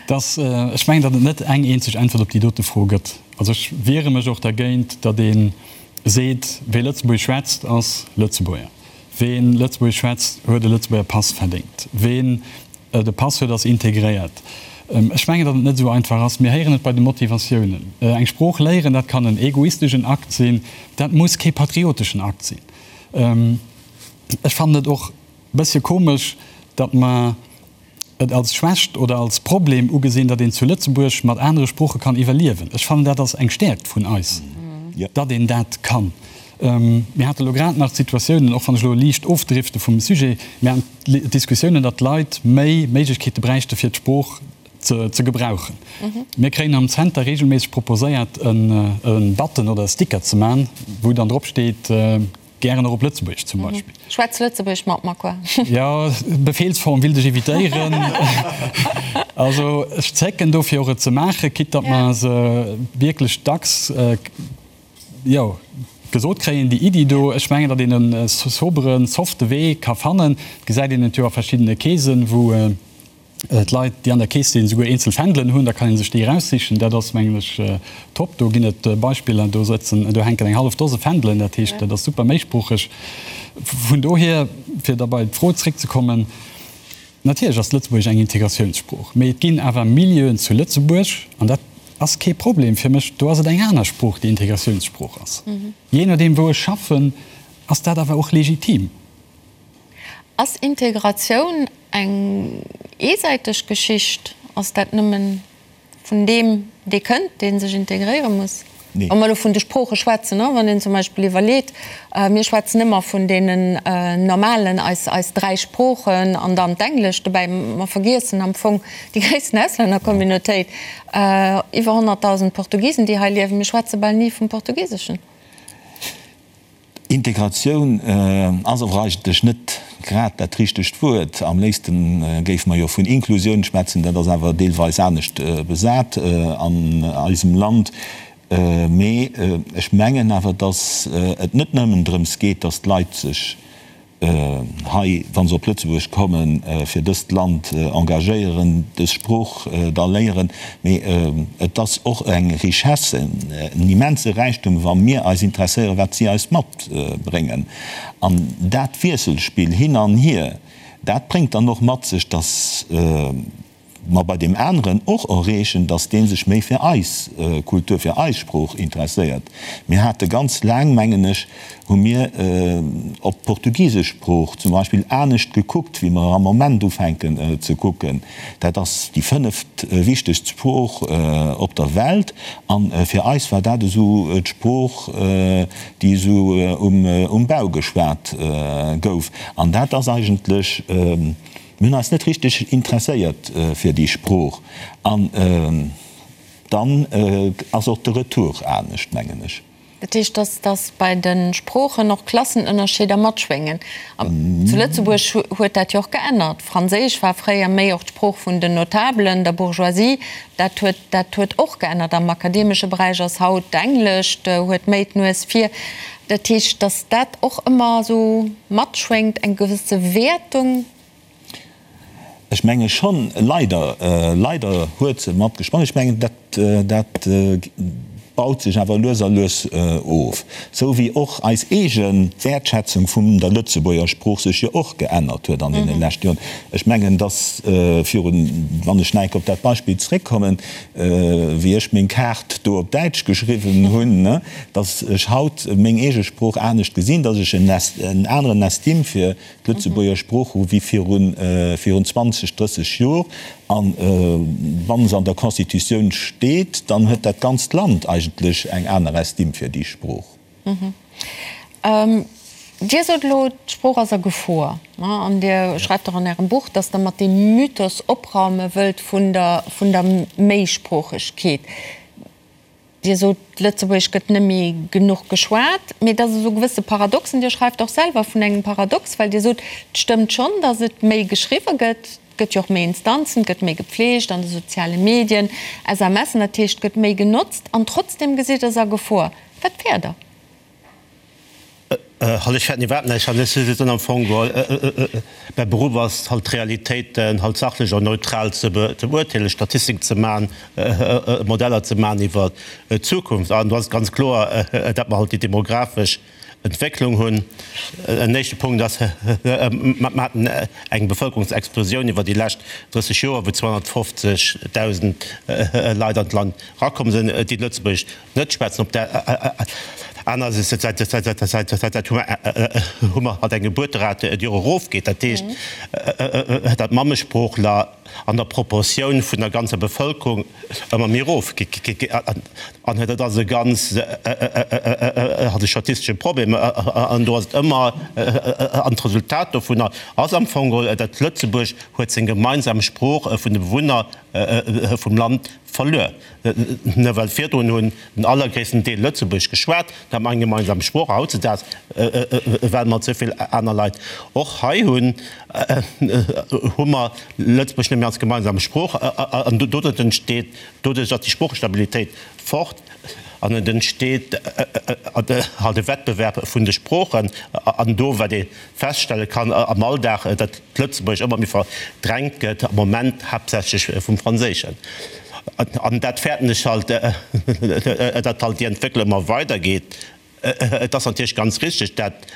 Dass, ech mengen, datt et net eng eenzeg Äntwert op déi dote Fro gëtt. Also ech wiere mech och dergéint, datt ee seet, wee Lëtzebuergesch schwätzt, ass Lëtzebuerger. Wee Lëtzebuergesch schwätzt, huet e Lëtzebuerger Pass verdéngt. Ween De Pass huet ass integréiert. Ech mengen, datt et net esou einfach ass. Mir héieren et bei de Motivatiounen. Eng Sprooch léieren, dat kann en egoisteschen Akt sinn, dat muss kee patrioteschen Akt sinn. Ech fannen et och e bëssche komesch, datt mer et als Schwächt oder als Problem ugesinn, datt een zu Lëtzebuerg mat anere Sprooche kann iwwerliewen. Ech fannen, dat ass eng Stäerkt vun eis, datt een dat kann. Mir hate lo grad nach d'Situatiounen, och wann ech elo liicht ofdrifte vum Sujet, mir haten d'Diskussiounen, datt d'Leit méi Méiglechkeete bräichte fir d'Sprooch ze gebrauchen. Mir kréien am Zenter reegelméisseg proposéiert e Button oder e Sticker ze man, wou dann drop steet, gären och op Lëtzebuergesch zum Beispill. Schwätz Lëtzebuergesch mat mer, quoi. Jo, Befehlsform willt ech evitéieren. Also ech zécken dofir och et ze maachen, quitte datt mer se wierklech dacks, jo, gesot kréien, déi Iddi do. Ech mengen, datt een e soberen, softe Wee ka fannen. Et gesäit een et jo a verschiddene Keesen, wou d'Leit, déi an der Kees sinn, souguer eenzel Fändelen hunn. Da kann ee sech déi eraussichen. Dat ass, mengen ech, top. Do ginn et Beispiller, do sëtzen, do hänken eng hallef Dose Fändelen. Dat heescht, dat ass super méisproocheg. Vun dohier, fir da bei d'Fro zréckzekommen, Natierlech ass Lëtzebuergesch eng Integratiounssprooch, mee et ginn awer Milieuen zu Lëtzebuerg, an dat ass kee Problem fir mech, do ass et eng aner Sprooch, déi Integratiounssprooch ass. Jee nodeem wou ech schaffen, ass dat awer och legitim. Ass Integratioun eng eesäiteg Geschicht? Ass dat nëmmen Vun deem, dee kënnt, dee sech integréiere muss. Wa mer elo vun de Sprooche schwätzen, wann een zum Beispill iwwerleet, mir schwätzen ëmmer vun deenen normalen, eis, eis dräi Sproochen an dann d'Englescht dobäi, mer vergiessen am Fong déi gréissten Auslännercommunautéit, iwwer 100.000 Portugisen, déi hei liewen, mir schwätze bal ni vum Portugiseschen. Integratioun ass awer eigentlech net grad dat richtegt Wuert. Am léifste géife mer jo vun Inklusioun schwätzen, dat ass awer deelweis anescht besat an eisem Land. Mee ech mengen awer, datt et net nëmmen drëms geet, datt d'Leit sech hei, wa se op Lëtzebuerg kommen, fir dëst Land engagéieren, dës Sprooch da léieren, mee et ass och eng Richesse, en immense Räichtum, wa mir eis interesséieren, wat si eis matbréngen. An dat Wiesselspill hin an hier, dat bréngt dann och mat sech, dass, mer bei deem aneren och erreechen, dass dee sech méi fir eis Kultur, fir eis Sprooch interesséiert. Mir hate ganz laang, mengen ech, hu mir op d'portugisesch Sprooch zum Beispill anescht gekuckt, wéi mer am Moment ufänken ze kucken. Dat ass déi fënneft wichtegst Sprooch op der Welt a fir eis war dat esou d'Sprooch, déi esou um Bau geschwat gouf. An dat ass eigentlech, Mir hunn eis net richteg interesséiert fir déi Sprooch. An dann ass och de Retour anescht, mengen ech. Dat heescht, dass dass bei de Sproochen och Klassenënnerscheeder matschwéngen. Zu Lëtzebuerg huet dat jo och geännert. Franséisch war fréier méi och d'Sprooch vun den Notabelen, der Bourgeoisie. Dat huet dat huet och geännert. Am akademesche Beräich ass haut d'Englescht huet méi d'Nues vir. Dat heescht, dass dat och ëmmer esou matschwéngt, eng gewësse Wäertung? Ech menge schonn, leider, leider huet se matgeschwongen. Ech mengen, dat, dat. baut sech awer lues a lues of, sou wéi och eis eege Wäertschätzung vun der Lëtzebuerger Sprooch sech jo och geännert huet an deene leschte Joren. Ech mengen, dass virun, wann ech nach eng Kéier op dat Beispill zréckkommen, wéi ech meng Kaart do op Däitsch geschriwwen hunn, dass ech haut meng eege Sprooch anescht gesinn, dass ech en aneren Estime fir d'Lëtzebuerger Sprooch hu wéi virun 20, 30 Jor. A wa se an der Constitutioun steet, dann huet dat ganzt Land eigentlech eng aner Estime fir déi Sprooch. Dir sot elo, d'Sprooch ass a Gefor. An Dir schreift och an Ärem Buch, datt Der mat deem Mythos opraume wëllt vun der Méisproochegkeet. Dir sot, Lëtzebuergesch gëtt net méi genuch geschwat, mee et ass esou e gewësse Paradoxen. Dir schreift och selwer vun engem Paradox, well Dir sot, et stëmmt schonn, datt et méi geschriwwe gëtt, et gëtt jo och méi Instanzen, et gëtt méi gepfleegt an de soziale Medien, SMSen, dat heescht, et gëtt méi genotzt an trotzdeem gesitt Der se a Gefor. Wat fäert Der? Halt, ech fäerten iwwerhaapt näischt. Halt, ech sinn am Fong geholl, mäi Beruff ass halt d'Realitéiten halt sachlech an neutral ze beurteelen, Statistiken ze maachen, Modeller ze maachen iwwer d'Zukunft. An do ass et ganz kloer, datt mer halt déi demografesch Entwécklung hunn. En éischte Punkt ass, mer haten eng Bevëlkerungsexplosioun iwwer déi lescht 30 Joer, wou 250.000 Leit an d'Land erakomm sinn, déi Lëtzebuergesch Net schwätzen. Op der aner Säit hu mer halt eng Gebuerterate, déi och erofgeet. Dat heescht, datt d'Mammesproochler an der Proportioun vun der ganzer Bevëlkerung ëmmer méi erofgeet. An dat ass e ganz halt e statistesche Problem. An do ass et ëmmer, an d'Resultat dovunner ass am Fong geholl, datt Lëtzebuerg huet seng gemeinsam Sprooch vun de Bewunner vum Land verluer. Ne well virdrun hunn den allergréissten Deel Lëtzebuergesch geschwat, da hat mer eng gemeinsam Sprooch. A hautzedaags, well mer esou vill aner Leit och hei hunn, hu mer Lëtzebuergesch net méi als gemeinsam Sprooch. An doduerch entsteet, doduerch ass déi Sproochestabilitéit fort an et entsteet halt e Wettbewerb vun de Sproochen. An do, wat ee feststelle kann am Alldag, datt d'Lëtzebuergesch ëmmer méi verdrängt gëtt, am Moment haaptsächlech vum Franséischen. An dat fäerten ech halt, datt halt déi Entwécklung ëmmer weidergeet. Et ass natierlech ganz richteg, datt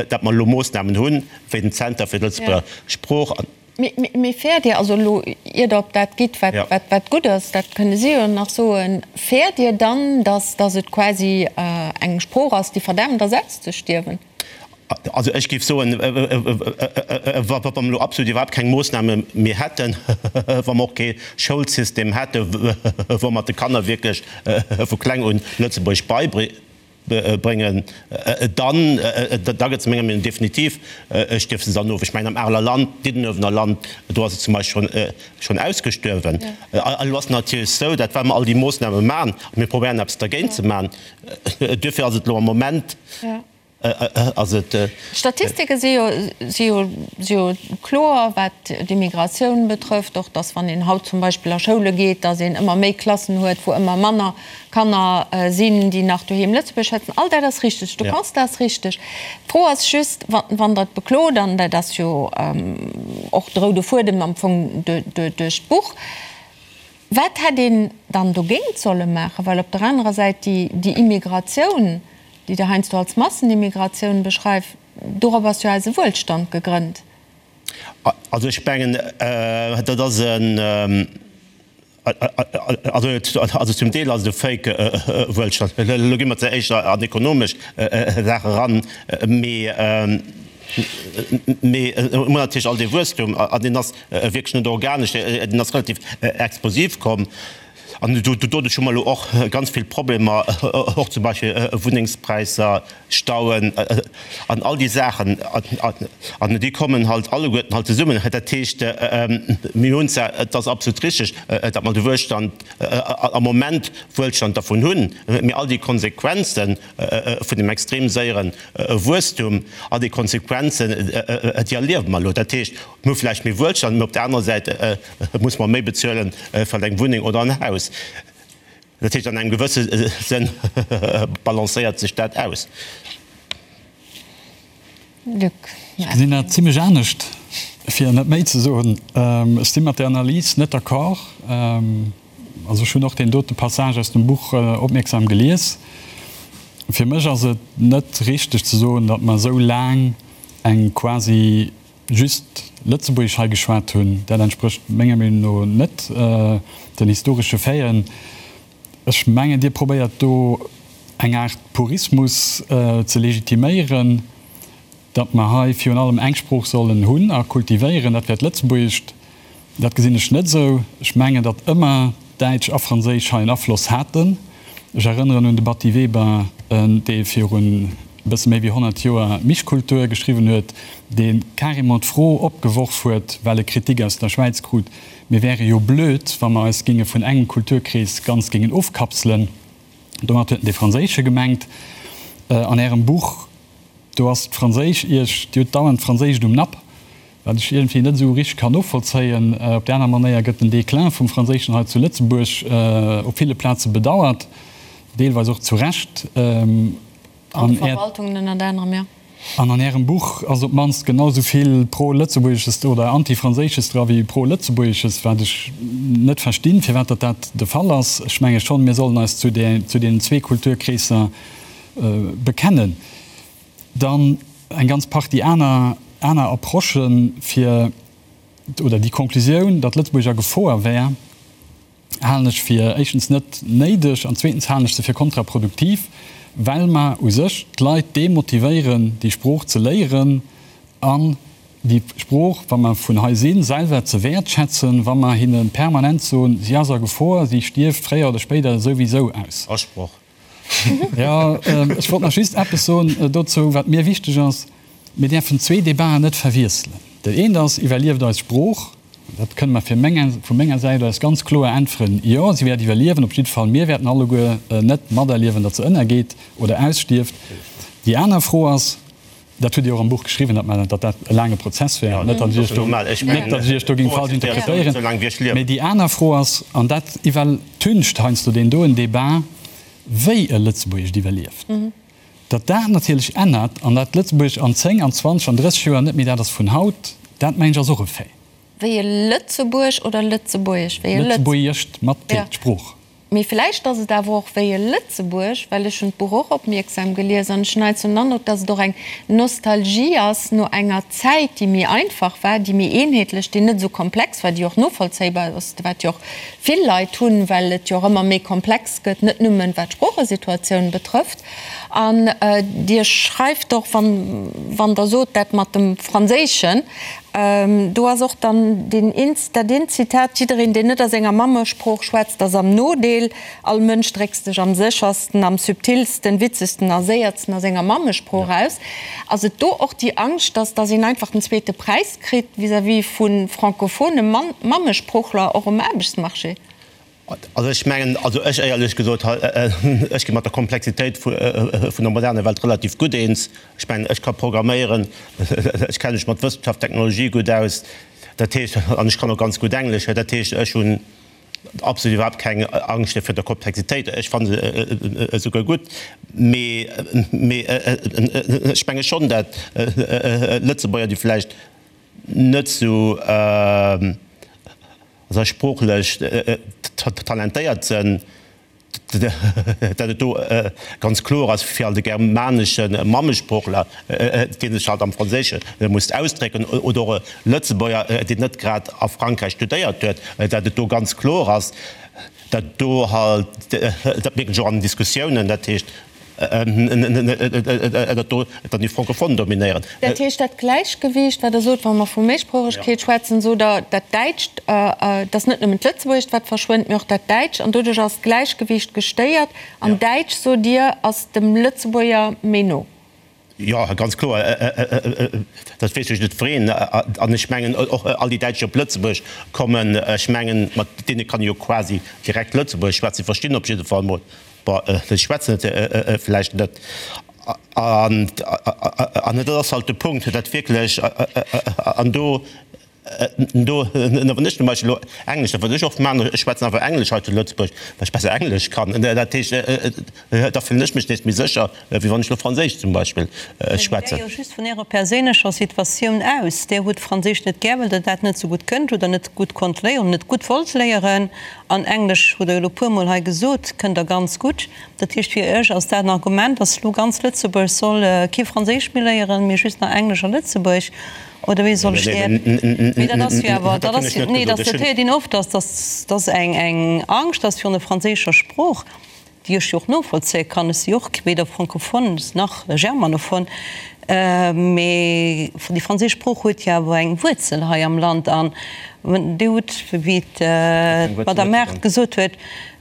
datt mer elo Moossnamen hunn, wéi den Zenter fir d'Lëtzebuerger Sprooch. Mee fäert Dir, also elo ier Der op dat gitt, wat wat gutt ass, dat kënne si jo nach soen, fäert Dir dann, datt datt et quasi eng Sprooch ass, déi verdämmt ass auszestierwen? Also ech géif soen, wa mer elo absolut iwwerhaapt keng Moossname méi hätten, wa mer och kee Schoulsystem hätten, wou mer de Kanner wierklech vu kleng un Lëtzebuergesch beibréngen, dann, da gëtt se menger Meenung no definitiv, stierft se dann of. Ech mengen am Areler Land, Diddenuewener Land, do ass et zum Beispill schonn ausgestuerwen. Elo ass et natierlech esou, datt wa mer all déi Moossname maachen, a mir probéieren eppes dergéint ze maachen, duerfir ass et elo am Moment, Ass et. D'Statistike si jo, si jo, si jo kloer, wat d'Immigratioun betrëfft, och datt wann een haut zum Beispill a Schoule geet, datt een ëmmer méi Klassen huet, wou ëmmer manner Kanner sinn, déi nach doheem Lëtzebuergesch schwätzen. All dat ass richteg, de Constat ass richteg. D'Fro ass just, wann Der et beklot, an dat ass jo och de roude Fuedem am Fong duerch d'Buch, Wat hätt een dann dogéint solle maachen? Well op der anerer Säit déi Immigratioun, déi Der heiansdo als Massenimmigratioun beschreift, dorop ass jo eise Wuelstand gegrënnt. Also ech mengen, dat ass en, also zum Deel ass et e Fake Wuelstand. Elo gi mer ze éischter an ekonomesch Saache eran, mee Mee mir hunn natierlech all dee Wuesstum, an deen ass wierklech net organesch, deen ass relativ explosiv komm. An doduerch hu mer elo och ganz vill Problemer, och zum Beispill Wunnengspräisser, Stauen an all déi Saachen. An déi kommen halt alleguerten halt zesummen. Dat heescht, mir hunn zwar, et ass absolut richtig, datt mer de Wuelstand am Moment Wuelstand dervun hunn, mee all déi Konsequenzen vun dem extrem séiere Wuesstum, all déi Konsequenzen, déi erliewe mer elo. Dat heescht, mir hu vläicht méi Wuelstand, mee op der anerer Säit musse mer méi bezuelen fir eng Wunneng oder en Haus. Dat heescht, an engem gewësse Sënn balancéiert sech dat aus. Luc. Ech gesinn dat zimlech anescht, fir net méi ze soen. Ech si mat där Analys net d'accord. Also ech hunn och deen dote Passage aus dem Buch opmierksam gelies. Fir mech ass et net richteg ze soen, datt mer esou laang eng quasi just Lëtzebuergesch hei geschwat hunn. Dat entsprécht menger Meenung no net den historesche Faiten. Ech mengen, Dir probéiert do eng Aart Purismus ze legitiméieren, datt mer hei virun allem eng Sprooch sollen hunn a kultivéieren, dat wär d'Lëtzebuergescht. Dat gesinn ech net esou. Ech mengen, datt ëmmer Däitsch a Franséisch hei en Afloss haten. Ech erënneren un de Batty Weber, dee virun e bësse méi wéi 100 Joer Mischkultur geschriwwen huet, dee carrément d'Fro opgeworf huet, well e Kritik aus der Schwäiz krut, mir wäre jo blöd, wa mer eis géinge vun engem Kulturkrees ganz géingen ofkapselen. Domat huet en dee franséische gemengt. An Ärem Buch, do ass d'Franséisch Iech, Dir hutt dauernd d'Franséischt um Napp. Wat ech iergendwéi net esou richteg kann novollzéien. Op där aner Manéier gëtt den Déclin vum Franséischen hei zu Lëtzebuerg op ville Plaze bedauert, deelweis och zu Recht. An de Verwaltungen ënnert anerem, jo. An an Ärem Buch ass op d'mannst genau esou vill Pro-Lëtzebuergesches oder Anti-Franséisches dra wéi Pro-Lëtzebuergesches, wat ech net verstinn, firwat datt dat de Fall ass. Ech menge schonn, mir sollen eis zu deenen zwee Kulturkreesser bekennen. Dann eng ganz Partie aner aner Approchen, fir, oder déi Konklusioun, datt Lëtzebuerg a Gefoer wär, halen ech fir éischtens net néideg an zweetens halen ech se fir kontraproduktiv, well mer u sech d'Leit demotivéieren, déi Sprooch ze léieren an déi Sprooch, wa mer vun hei sinn, selwer ze wäertschätzen, wa mer hinne permanent soen, si ass a Gefor, si stierft fréier oder spéider souwisou aus. Asproch. Jo, ech wollt nach just eppes soen dozou, wat mir wichteg ass. Mir däerfen zwee Debaten net verwiesselen. Dat eent ass, Iwwerlieft eis Sprooch? Dat kënne mer fir meng, vu menger Säit aus ganz kloer äntweren, Jo, si wäert iwwerliewen. Op jidde Fall, mir wäerten alleguer net materliewen, datt se ënnergeet oder ausstierft. Déi aner Fro ass, Dat hutt Dir och am Buch geschriwwen, datt mer, datt dat e laange Prozess wär. Net, datt ech Iech do, net, datt ech Iech do géing falsch interpretéieren. Mee déi aner Fro ass, an dat iwwertüncht heiansdo deen doen Débat, wéi e Lëtzebuergescht iwwerlieft. Datt dat natierlech ännert an dat Lëtzebuergesch an 10, an 20, an 30 Joer net méi dat ass vun haut, dat mengen ech ass och e Fait. Wéi e Lëtzebuerg oder Lëtzebuergesch? Wéi e Lëtz. Lëtzebuergescht mat T, d'Sprooch. Mee vläicht ass et awer och wéi e Lëtzebuerg, well ech hunn d'Buch och opmierksam gelies an ech hunn heiansdo den Androck, dass et och eng Nostalgie ass no enger Zäit, déi méi einfach war, déi méi eenheetlech, déi net esou komplex war, déi och novollzéibar ass, wat jo och vill Leit hunn, well et jo och ëmmer méi komplex gëtt, net nëmmen wat d'Sproochesituatioun betrëfft. An Dir schreift och, wann, wann Der sot, dat mat dem Franséischen, do ass och dann deen een, dat eent Zitat, Jiddereen, deen net a senger Mammesprooch schwätzt, ass am Nodeel. All Mënsch dréckt sech am séchersten, am subtilsten, witzegsten a séiertsten a senger Mammesprooch aus. Ass et do och déi Angscht, dass, dass een einfach den zweete Präis kritt vis-à-vis vu francophone Mammesproochler och um Aarbechtsmarché? Also ech mengen, also ech éierlech gesot, ech gi mat der Komplexitéit vun der moderner Welt relativ gutt eens. Ech mengen, ech ka programméieren, ech kenne mech mat Wëssenschaft, Technologie gutt aus, dat heescht, an ech kann och ganz gutt Englesch, dat heescht, ech hunn absolut iwwerhaapt keng Angscht virun der Komplexitéit. Ech fanne se esouguer gutt. Mee, mee ech menge schonn, dat Lëtzebuerger, déi vläicht net esou, also sproochlech talentéiert sënn, dat et do ganz kloer ass fir all de germanesche Mammesproochler, dee sech halt am Franséische muss ausdrécken, oder och e Lëtzebuerger, deen net grad a Frankräich studéiert huet, dat et do ganz kloer ass, dat do halt, dat mierken ech och an den Diskussiounen, dat heescht, dat do dann déi Francophone dominéieren. Dat heescht, dat Gläichgewiicht, wat Der sot, wa mer vu Méisproochegkeet schwätzen, sot Der, dat Däitscht, et ass net nëmmen d'Lëtzebuergescht, wat verschwënnt, mee och dat Däitscht, an doduerch ass d'Gläichgewiicht gestéiert. An Däitsch, sot Dir, ass dem Lëtzebuerger méi no. Jo, ganz kloer, dat weess ech net wreen. An ech mengen och all déi Däitsch, déi op Lëtzebuerg kommen, ech mengen, mat deene kann ee jo quasi direkt Lëtzebuergesch schwätzen, si verstinn op jidde Fall mol, bon, si schwätzen et vläicht net. An dat ass halt de Punkt, dat wierklech, an do. Do, wann ech zum Beispill elo Englesch, dat wat ech oft maachen, ech schwätzen einfach Englesch hei zu Lëtzebuerg, well ech besser Englesch kann. Dat heescht, da fillen ech mech nees méi sécher, wéi wann ech elo Franséisch zum Beispill schwätzen. Mä Dir gitt jo just vun Ärer perséinlecher Situatioun aus. Dir hutt Franséisch net gär, well Der dat net esou gutt kënnt oder net gutt konnt léieren, net gutt wollt léieren. An Englesch, hutt Der jo elo e puermol hei gesot, kënnt Der ganz gutt. Dat heescht, fir Iech ass dat en Argument, dass elo ganz Lëtzebuerg soll kee Franséisch méi léieren, mee just nach Englesch a Lëtzebuerg? Oder wéi soll ech dat? Mee dat ass jo awer, dat ass jo, nee, dat héiert een oft, dass, dass, dass eng, eng Angscht ass virun der franséischer Sprooch, déi ech jo och novollzéie kann. Ech si jo och weder francophone nach germanophone, mee déi franséisch Sprooch huet jo awer eng Wuerzel hei am Land. An Dir hutt, wéi d'Madame Mart gesot huet,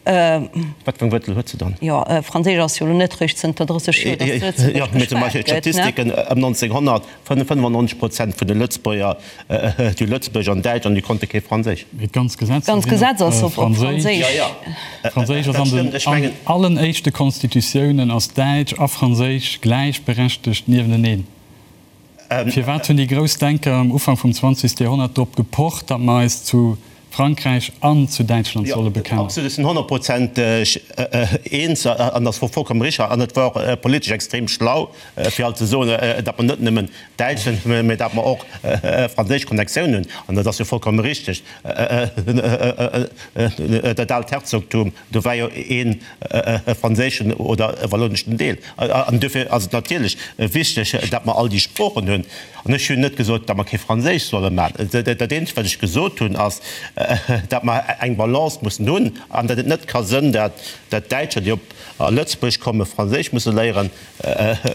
Wat fir eng Wuerzel huet se dann? Jo, Franséisch ass jo elo net réischt zënter 30 Joer, dass zu Lëtzebuerg Jo, mee zum Beispill geschwat gëtt, ne? d'Statistiken ëm 1900, 95 Prozent vun de Lëtzebuerger, déi hu Lëtzebuergesch an Däitsch an déi konnte kee Franséisch. Mee d'ganz Gesetzer D'ganz sinn Gesetz ass op op Franséisch. Franséisch. Jo, jo, Franséisch ass dat an den stëmmt. Ech mengen. allen éischte Constitutiounen ass Däitsch a Franséisch gläichberechtegt niewenteneen. Firwat hunn déi grouss Denker am Ufank vum 20. Joerhonnert drop gepocht, datt mer eis zu Frankräich an zu Däitschland solle bekennen? Absolut, ech sinn honnertprozenteg eens an dat wor vollkommen richtig an et war och politesch extrem schlau, fir alt ze soen, datt mer net nëmmen Däitsch sinn, mä datt mer och franséisch Connectioun hunn. An dat ass jo vollkomme richtig. Dat aalt Herzogtum, do war jo ee franséischen oder e walloneschen Deel. An duerfir ass et natierlech wichteg, datt mer all déi Sproochen hunn. An ech hunn net gesot, datt mer kee Franséisch solle maachen. Dat eenzegt, wat ech gesot hunn, ass, datt mer eng Balance mussen hunn an datt et net ka sënn, datt Däitscher, déi op Lëtzebuerg kommen, Franséisch musse léieren.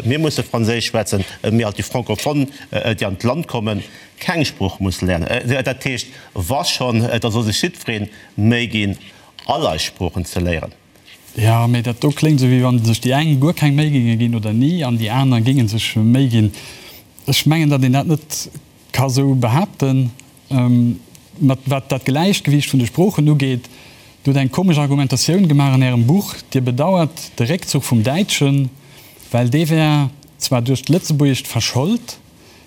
Mir musse Franséisch schwätzen, mee alt déi Francophone, déi an d'Land kommen, keng Sprooch musse léieren. Dat heescht, wa schonn, da soll sech jiddweree Méi ginn, all eis Sproochen ze léieren. Jo, mee dat do kléngt esou, wéi wann sech déi eng guer keng Méi géinge ginn oder ni an déi aner géinge sech Méi ginn. Ech mengen, datt een dat net ka sou behaapten. Mat wat dat Gläichgewiicht vun de Sproochen ugeet, Dir hutt eng komesch Argumentatioun gemaach an Ärem Buch. Dir bedauert de Réckzuch vum Däitschen, well dee wär zwar duerch d'Lëtzebuergescht verschold,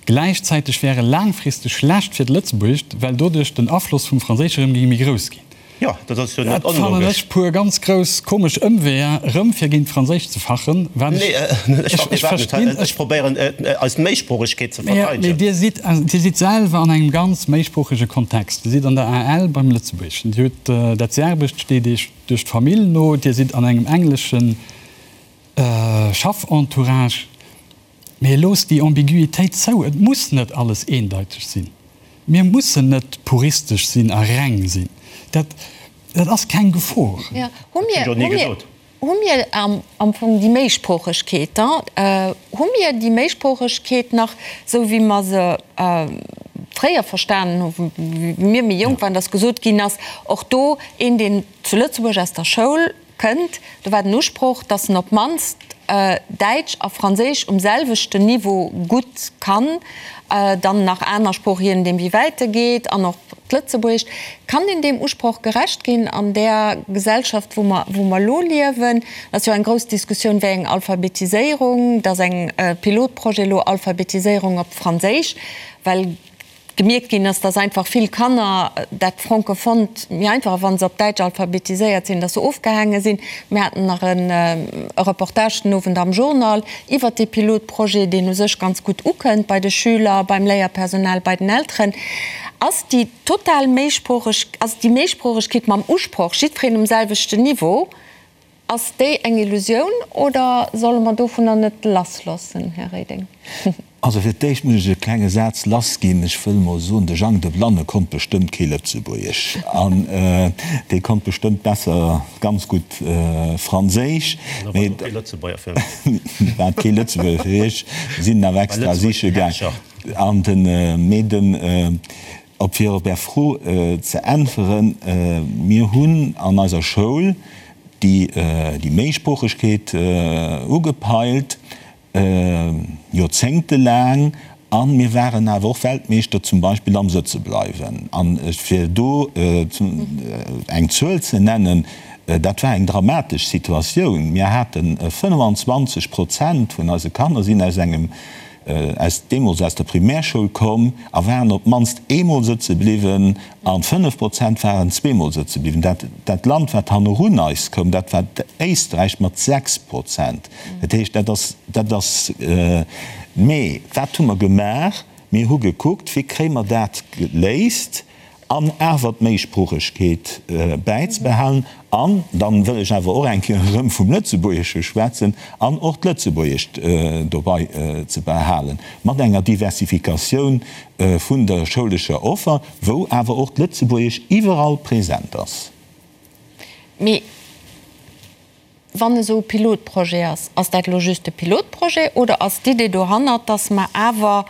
Gläichzäiteg wär e laangfristeg schlecht fir d'Lëtzebuergescht, well doduerch den Afloss vum Franséische rëm géing méi grouss ginn. Jo, dat ass jo net Dat fannen onlogesch. ech puer ganz grouss komesch Ëmweeër, rëm fir géint d'Franséischt ze fachen, wat ech, Nee, ech ech, fache ech iwwerhaapt net. verstinn. Ech probéieren, eis Méisproochegkeet ze Mee, mee verteidegen. Dir sidd, Dir sidd selwer an engem ganz méisproochege Kontext. Dir sidd an der AL beim Lëtzebuergeschen. Dir hutt dat Serbescht steet Iech duerch d'Famill no. Dir sidd an engem engleschen Schaffentourage. Mee loosst déi Ambiguitéit zou. Et muss net alles eendeiteg sinn. Mir mussen net puristesch sinn a reng sinn. Dat, dat ass keng Gefor. Jo, hu mir, hu mir, hu mir am Fong déi Méisproochegkeet da? Hu mir déi Méisproochegkeet nach, esou wéi mer se fréier verstanen hu wéi mir méi jonk waren, datt gesot ginn ass, och do een, deen zu Lëtzebuerg aus der Schoul Kënnt, do war den Usproch, dass en op d'mannst Däitsch a Franséisch um selwechten Niveau gutt kann, dann nach aner Sprooch, je nodeem wéi wäit e geet, an och d'Lëtzebuergescht. Kann een deem Usproch gerecht ginn an där Gesellschaft, wou mer, wou mer elo liewen? Et ass jo eng grouss Diskussioun, wéi eng Alphabetiséierung, et ass eng Pilotprojet elo, Alphabetiséierung op Franséisch, well gemierkt ginn ass, dass einfach vill Kanner dat Francophont méi einfach, wa se op Däitsch alphabetiséiert sinn, dass se ofgehaange sinn. Mir haten nach e Reportage den Owend am Journal iwwert dee Pilotprojet, deen u sech ganz gutt ukënnt bei de Schüler, beim Léierpersonal, bei den Elteren. Ass déi total Méisproocheg, ass déi Méisproochegkeet mam Usproch, jiddwereen um selwechten Niveau, Ass déi eng Illusioun oder solle mer dovunner net lassloossen, Här Reding? Also fir d'éischt muss ech e klenge Saz lassginn. Ech wëll mol soen, de Jang de Blanne konnt bestëmmt kee Lëtzebuergesch an dee konnt bestëmmt besser ganz gutt Franséisch. An da war et och kee Lëtzebuerger fir mech. War et kee Lëtzebuerger fir Iech, sinn en awer extra siche gaang. An den, mee den, op fir op Är Fro ze äntweren, Mir hunn an eiser Schoul déi Méisproochegkeet ugepeilt, joerzéngtelaang, a mir waren awer och Weltmeeschter zum Beispill am Sëtzebleiwen. A fir do eng Zuel ze nennen, dat war eng dramatesch Situatioun, Mir hate 25 Prozent vun eise Kanner sinn aus engem. aus deemools aus der Primärschoul komm a waren op d'mannst eemol sëtze bliwwen a 5 Prozent waren zweemol sëtze bliwwen. Dat, dat Land, wat hannerun eis koum, dat war Éisträich mat 6 Prozent. Dat heescht, dat ass, dat ass, mee wat hu mer gemaach? Mir hu gekuckt, wéi kréie mer dat geléist an awer d'Méisproochegkeet bäizebehalen an dann wëll ech awer och eng Kéier erëm vum Lëtzebuergesche schwätzen, an och d'Lëtzebuergescht dobei ze behalen, mat enger Diversifikatioun vun der schoulescher Offer, wou awer och d'Lëtzebuergesch iwwerall present ass. Mee wann esou e Pilotprojet ass, ass dat elo just e Pilotprojet oder ass d'Idee dohannert, dass mer awer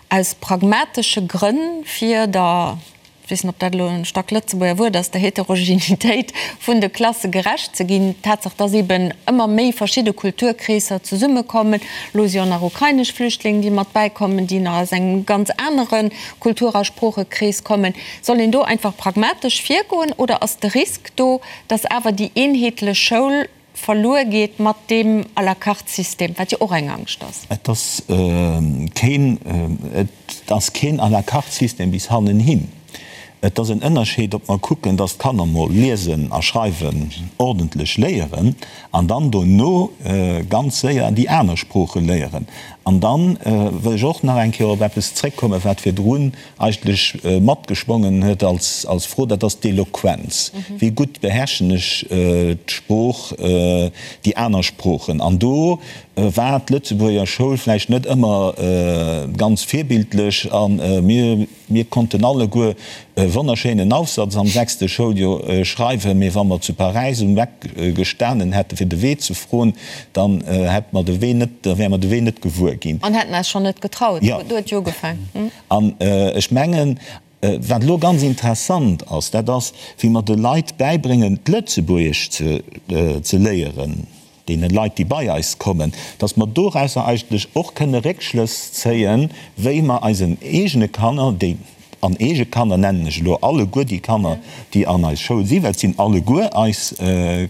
aus pragmatesche Grënn fir der, ech weess net, ob dat elo en Stack-Lëtzebuerger Wuert ass, der Heterogenitéit vun de Klasse gerecht ze ginn, d'Tatsaach, dass eeben ëmmer méi verschidde Kulturkreesser zesummekommen, elo si jo nach ukrainesch Flüchtling, déi mat bäikommen, déi nach aus engem ganz anere Kultur a Sproochekrees kommen, soll een do einfach pragmatesch virgoen oder ass de Risk do, dass awer déi eenheetlech Schoul verluer geet mat deem à la carte System, wat jo och eng Angscht ass. Et ass keen, et ass keen à la carte System bis hannenhin. Et ass en Ënnerscheed, ob mer kucken, dass d'Kanner mol liesen a schreiwen ordentlech léieren an dann dono ganz séier déi aner Sprooche léieren. An dann wëll ech och nach eng Kéier op eppes zréckkommen, wat virdrun eigentlech matgeschwongen huet als Fro, dat ass d'Eloquenz. Wéi gutt beherrschen ech d'Sprooch, déi aner Sproochen? An do war d'Lëtzebuerger Schoul vläicht net ëmmer ganz virbildlech a mir, mir konnten alleguer e wonnerschéinen Aufsatz am sechste Schouljoer schreiwen, mee wa mer zu Paräis um Eck gestanen hätten, fir de Wee ze froen, dann hätte mer de Wee net, da wäre mer de Wee net gewuer ginn. An hätten eis schonn net getraut. Do huet jo ugefaangen. An ech mengen, wat elo ganz interessant ass, dat ass, wéi mer de Leit bäibréngen, d'Lëtzebuergesch ze léieren, deene Leit, déi bei eis kommen, dass mer dorausser eigentlech och kënne Réckschlëss zéien, wéi mer eisen eegene Kanner, déi, an eege Kanner nennen ech elo alleguer déi Kanner, déi an eis Schoul sinn, well et sinn alleguer eis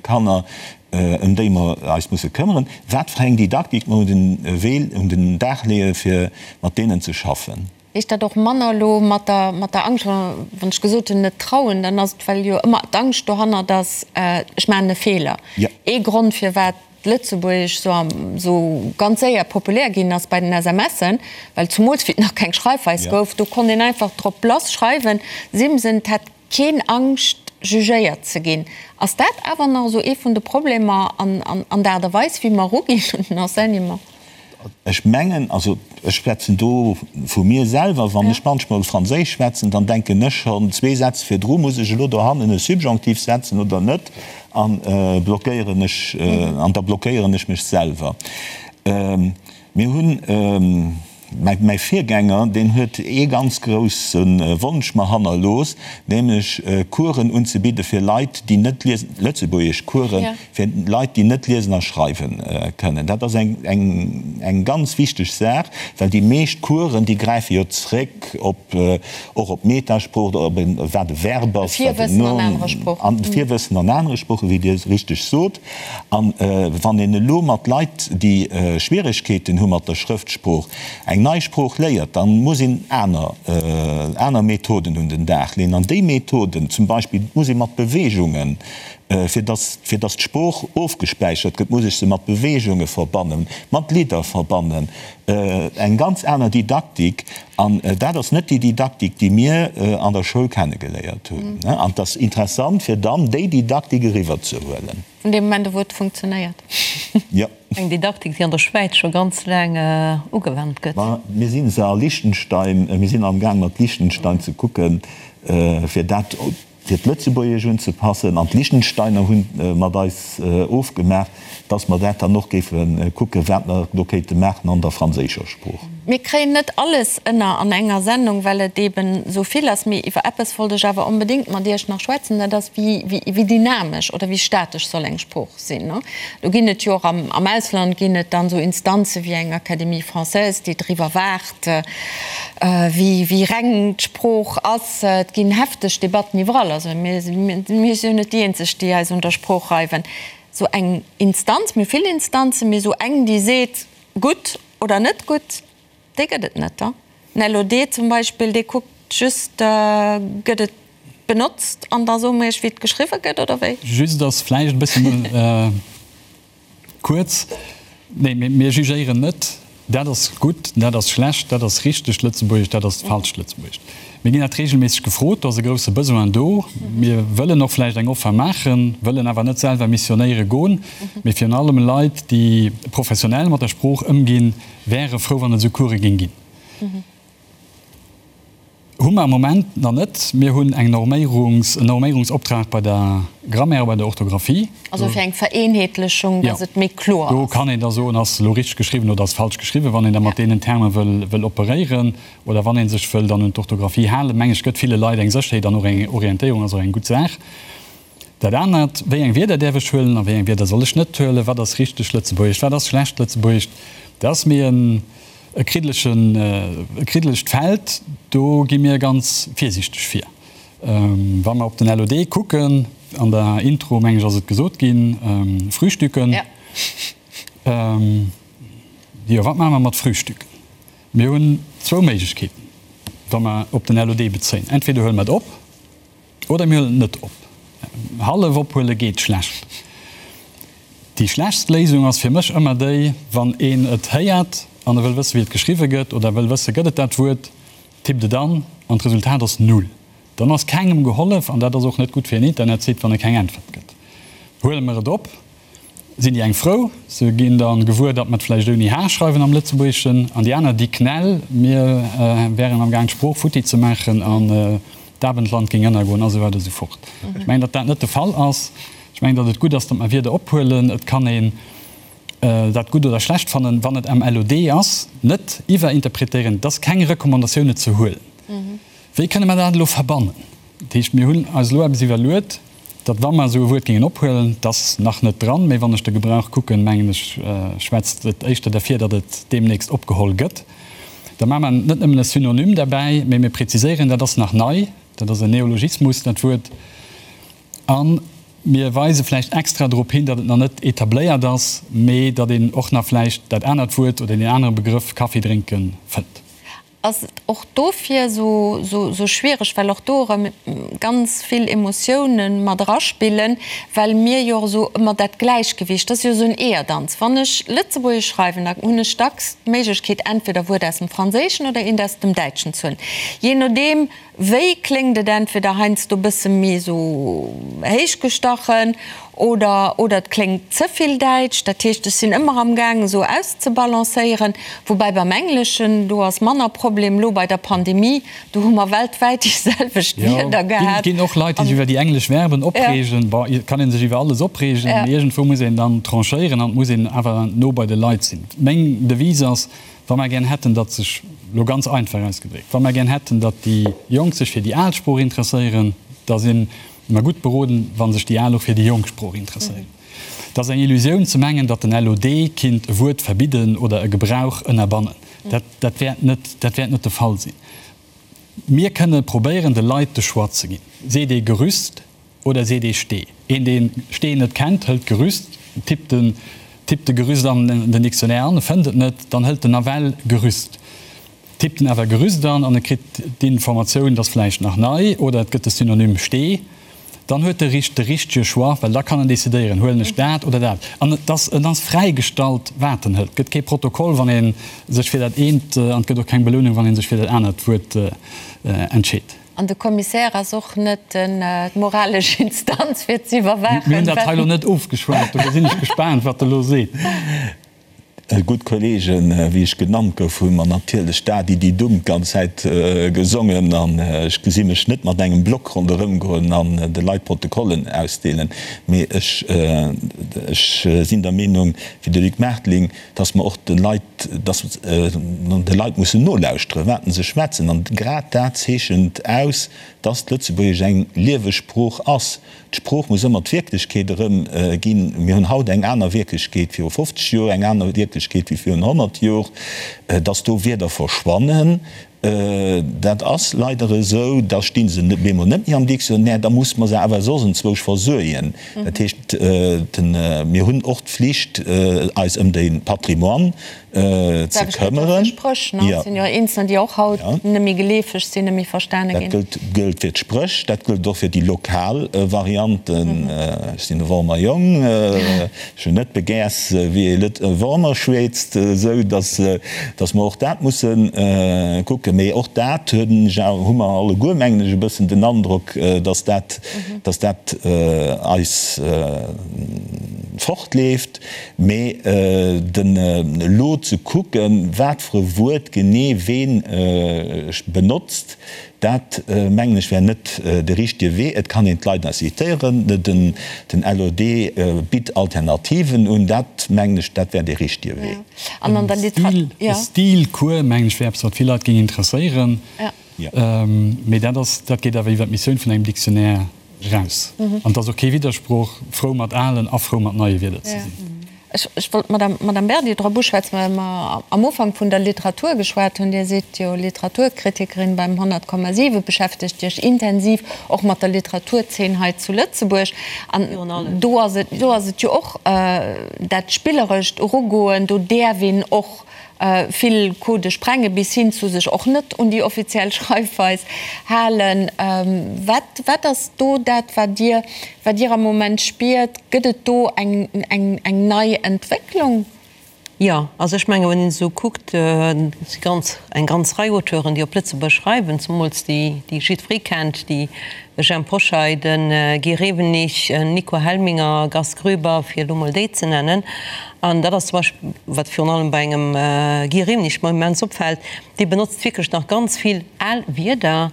Kanner, ëm déi mer eis musse këmmeren, wat fir eng Didaktik mer un den Wee, un den Dag leeë fir mat deenen ze schaffen. Heescht dat och manner elo mat der, mat der Angscht, wann ech gesot hunn, net trauen, dann ass et, well jo ëmmer d'Angscht dohannert ass, ech maachen e Feeler. Ee Grond, firwat d'Lëtzebuergesch esou am, esou ganz séier populär ginn ass bei den SMSen, well zumools wéi et nach keng Schreifweis gouf, do konnt een einfach drop lass schreiwen, Simsen, 't hätt Keen Angscht jugéiert ze ginn. Ass dat awer nach esou ee vun de Problemer an der Aart a Weis wéi mer eruginn un den Enseignement? Ech mengen, also ech schwätzen do vu mir selwer, wann ech manchmol Franséisch schwätzen, dann denken ech schonn zwee Sätz virdru, muss ech elo dohannen e Subjonctif setzen oder net, a blockéieren ech, an da blockéieren ech mech selwer. Mir hunn. Mäi Virgänger, deen huet ee ganz grousse Wonsch mer hannerlooss, nämlech Coursen unzebidde fir Leit, déi net liesen, lëtzebuergesch Coursen fir Leit, déi net liesen a schreiwe kënnen. Dat ass eng ganz wichteg Saach, well déi meescht Coursen, déi gräife jo zréck op, och op d'Metasprooch oder op wat e Verb ass, wat en Nom, an Virwëssen an anere Sproochen, wéi Dir richteg sot. A wann een elo mat Leit, déi Schwieregkeeten hu mat der Schrëftsprooch, eng nei Sprooch léiert, da muss een aner, aner Methoden un den Dag leeën. An déi Methoden, zum Beispill muss ee mat Beweegungen, fir dass, fir dass d'Sprooch ofgespäichert gëtt, muss ech se mat Beweegunge verbannen, mat Lidder verbannen, eng ganz aner Didaktik. An dat ass net déi Didaktik, déi mir an der Schoul kennegeléiert hunn. An et ass interessant, fir dann déi Didaktik eriwwerzehuelen. Vun deem Moment u wou et funktionéiert. Jo. Eng Didaktik, déi an der Schwäiz scho ganz laang ugewannt gëtt. Ma mir si se a Liechtenstein, mir sinn amgaang mat Liechtenstein ze kucken, fir dat fir d'Lëtzebuergesch unzepassen, an d'Liechtensteiner hu mat eis ofgemaach, dass mer dat dann och géife kucken, wat mer do kéinte maachen an der franséischer Sprooch. Mir kréien net alles ënner an enger Sendung, well et eeben esou vill ass. Mee iwwer eppes wollt ech awer onbedéngt mat Iech nach schwätzen, dat ass, wéi dynamesch oder wéi statesch soll eng Sprooch sinn. Do ginn et jo och am Ausland ginn et dann esou Instanze wéi eng Académie française, déi driwwer waacht, wéi reng d'Sprooch ass. Et ginn hefteg Debatten iwwerall. Also mir si jo net déi eenzeg, déi eis un der Sprooch reiwen. Esou eng Instanz, mir hu vill Instanzen, mee esou eng, déi seet, gutt oder net gutt. Déi gëtt et net, da. Den LOD zum Beispill, dee kuckt just, gëtt et benotzt an da soe mer iech, wéi et geschriwwe gëtt, oder wéi? Just ass vläicht e bëssen kuerz. Nee, mir jugéieren net, dat ass gutt, dat ass schlecht, dat ass richtegt Lëtzebuergesch, dat ass falscht Lëtzebuergesch. Mir ginn dat reegelméisseg gefrot, do ass e grousse Besoin do. Mir wëllen och vläicht eng Offer maachen, wëllen awer net selwer missionéiere goen, mee virun allem Leit, déi professionell mat der Sprooch ëmginn, Wäre frou wann et esou Course géing ginn. Hu mer am Moment nach net. Mir hunn eng Norméierungs, en Norméierungsoptrag bei der Grammaire a bei der Orthographie. Also fir eng Vereenheetlechung, dass et méi kloer ass. Do kann een da soen, ass elo richteg geschriwwen oder ass falsch geschriwwen, wann een da mat deenen Terme wëll, wëll operéieren oder wann ee sech wëll dann un d'Orthographie halen. Meng ech, gëtt ville Leit eng Sécherheet an och eng Orientéierung, ass och eng gutt Saach. Dat anert, wéi eng Wierder däerf ech huelen a wéi eng Wierder soll ech net huelen, wat ass richteg Lëtzebuergesch, wat ass schlecht Lëtzebuergesch, dat ass méi en e kriddelegen, e kriddelegt Feld. Do gi mir ganz virsiichteg vir. Wa mer op den LOD kucken, an der Intro, meng ech, ass et gesot ginn, Frühstücken. Jo, wat maache mer mat Frühstücken? Mir hunn zwou Méiglechkeeten, wa mer op den LOD bezéien. Entweder huele mer et op, Oder mir huelen et net op. Hallef ophuele geet schlecht. Déi schlechtst Léisung ass fir mech ëmmer déi, wann een et héiert an e wëll wësse wéi et geschriwwe gëtt oder wëll wësse gëtt et dat Wuert, tippt et an an d'Resultat ass null. Dann ass kengem gehollef an dat ass och net gutt fir en Internetsite, wann e keng Äntwert gëtt. Huele mer et op, Sinn déi eng frou, se ginn da gewuer, datt mer et vläicht ouni h schreiwen am Lëtzebuergeschen, an déi aner, déi knäll, mir wären am Gaang d'Sprooch futti ze maachen an d'Abendland géing ënnergoen a sou weider a sou fort. Ech mengen, datt dat net de Fall ass. Ech mengen, datt et gutt ass, datt mer Wierder ophuelen. Et kann een dat gutt oder schlecht fannen, wann et am LOD ass, net iwwerinterpretéieren. Et ass keng Recommandatioun, et ze huelen. Wéi kënne mer dat elo verbannen? Dat heescht, mir hunn eis elo eppes iwwerluet, datt wa mer esou e Wuert géingen ophuelen, et ass nach net dran, mee wann ech de Gebrauch kucken, mengen ech, schwätzt et éischter derfir, datt et deemnächst opgeholl gëtt, da maache mer net nëmmen e Synonym derbäi, mee mir präziséieren, dat ass nach nei, dat ass en Neologismus, dat Wuert, a mir weise vläicht extra drop hin, datt et nach net etabléiert ass, mee datt een och nach vläicht dat anert Wuert oder deen anere Begrëff Kaffi drénken fënnt. Ass et och dofir esou schwiereg, well och do erëm ganz vill Emotiounen mat eraspillen, well mir jo och esou ëmmer dat Gläichgewicht, dat ass jo esou en Eeërdanz. Wann ech Lëtzebuergesch schreiwen, da hunn ech dacks d'Méiglechkeet, entweder e Wuert aus dem Franséischen oder eent aus dem Däitschen ze huelen, jee nodeem Wéi kléngt et entweder heiansdo bësse méi esou héichgestachen oder oder et kléngt ze vill däitsch. Dat heescht, ech sinn ëmmer am gaang esou auszebalancéieren. Woubäi beim Engleschen, do ass manner Problem. Elo bei der Pandemie, do hu mer weltwäit déi selwecht Wierder gehat. Jo, ginn och Leit, déi sech iwwer déi englesch Verben opreegen. Bon, et kann ee sech iwwer alles opreegen, mee iergendwou muss een dann tranchéieren an et muss een awer no bei de Leit sinn. Meng Devise ass, Wa mer gär hätten, datt sech, elo ganz einfach ausgedréckt, wa mer gär hätten, datt déi Jonk sech fir déi al Sprooch interesséieren, da si mer gutt beroden, wa sech déi Al och fir déi jonk Sprooch interesséieren. Et ass eng Illusioun ze mengen, datt den LOD kinnt e Wuert verbidden oder e Gebrauch ënnerbannen. Dat, dat wäert net, dat wäert net de Fall sinn. Mir kënne probéieren, de Leit de Choix ze ginn. Seet ee Gerüst Oder seet ee Stee. Een deen Stee net kennt, hëlt Gerüst, tippt den tippt de Gerüst an den Dictionnaire an, e fënnt et net, dann hëlt en nawell Gerüst, tippt en awer Gerüst an an e kritt d'Informatioun, et ass vläicht nach nei oder et gëtt de Synonym Stee, dann huet de richt de richtege Choix, well da kann en decidéieren, huelen ech dat oder dat. An et ass en ass fräigestallt wat en hëlt. Et gëtt kee Protokoll wann ee sech fir dat eent an et gëtt och keng Belounung wann ee sech fir dat anert Wuert entscheet. An de Commissaire ass och net d'moralesch Instanz fir ze iwwerwaachen. Mir hunn dat hei elo net ofgeschwat, dofir sinn ech gespaant, wat e elo seet. Gutt Kollegen, wéi ech genannt gouf, hu mer natierlech Da di di dum d'ganz Zäit gesongen. An ech gesi mech net mat engem Block ronderëm goen an de Leit Protokollen ausdeelen. Mee ech, ech sinn der Meenung wéi de Luc Martling, dass mer och de Leit, dass mer de Leit mussen nolauschteren, wat se schwätzen. An grad dat zeechent aus, dass d'Lëtzebuergesch eng lieweg Sprooch ass. D'Sprooch muss ëmmer d'Wierklechkeet erëmginn. Mir hunn haut eng aner Wierklechkeet viru 50 Joer, eng aner Wierklechkeet wéi virun 100 Jor. Dass do Wierder verschwannen. Dat ass leider esou. Da sti se bemol net méi am Dictionnaire, da muss mer se awer soss enzwousch versuergen. Dat heescht, mir hunn och d'Flicht, eis ëm de Patrimoine ze këmmeren. Spréch, ne? Et sinn jo eenzelner, déi och haut net méi geleefeg sinn, net méi verstane ginn. Dat gëllt fir d'Spréch, dat gëllt och fir déi lokal Varianten. Ech sinn e Wormer Jong, ech hunn net begäers, wéi ee Lët Wormer schwätzt, esou datt datt mer och dat musse kucken. Mee och dat hunn ech awer, hu mer alleguer, mengen ech, e bëssen den Androck, datt dat, datt dat eis fortleeft. Mee den elo ze kucken, wat fir e Wuert genee ween benotzt, dat mengen ech wär net de richtege Wee. Et kann een d'Leit incitéieren, den LOD bitt Alternativen un, dat mengen ech, dat wär dee richtege Wee. E Stilcours, mengen ech, wär eppes, wat vill Leit géing interesséieren. Mee dat ass, dat geet awer iwwer d'Missioun vun engem Dictionnaire eraus. An et ass och kee Widdersproch, frou mat alen a frou mat neie Wierder ze sinn. Ech wollt d'Madame, Madame Berdi drop uschwätzen, well mer am Ufank vun der Literatur geschwat hunn. Dir sidd jo Literaturkritikerin beim 100,7, beschäftegt Iech intensiv och mat der Literaturzeen hei zu Lëtzebuerg. An do ass et, do ass et jo och dat spillerescht Erugoen, do däerf een och vill Codë sprenge bis hin zu sech och net un déi offiziell Schreifweis halen. Wat, wat ass do dat, wat Dir, wat Dir am Moment spiert? Gëtt et do eng, eng, eng nei Entwécklung? Jo, also ech menge wann een esou kuckt, et si ganz, eng ganz Rei Auteuren, déi op Lëtzebuerg schreiwen, zemools déi, déi jiddweree kennt, déi Jhemp Hoscheit, de Guy Rewenig, Nico Helminger, Gast Groeber, fir elo mol déi ze nennen. An dat ass zum Beispill, wat virun allem bei engem Guy Rewenig mer immens opfält, dee benotzt wierklech nach ganz vill al Wierder,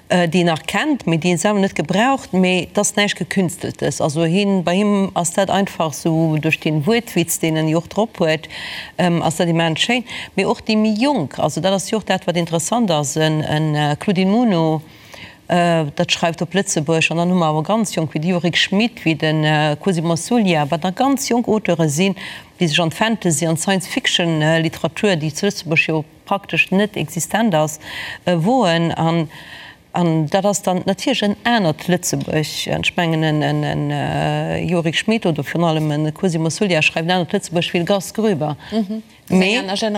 déi en nach kennt, mee déi en selwer net gebraucht. Mee et ass näischt Gekünsteltes. Also hien, bei him ass dat einfach esou, duerch dee Wuertwitz, deen en jo och drop huet, ass dat immens schéin. Mee och déi méi Jonk, also dat ass jo och dat, wat interessant ass, e Claudine Muno, Dat schreift op Lëtzebuerg. An dann hu mer awer ganz jonk, wéi de Yorick Schmit, wéi de Cosimo Suglia, wat nach ganz jonk Auteure sinn, déi sech an d'Fantasy an d'Science-Fiction-Literatur, déi zu Lëtzebuerg jo praktesch net existent ass, woen. An dat ass dann natierlech en anert Lëtzebuerg. An ech mengen, en Yorick Schmit oder virun allem e Cosimo Suglia schreift en anert Lëtzebuerg wéi de Gast Groeber. Mee dat ass eng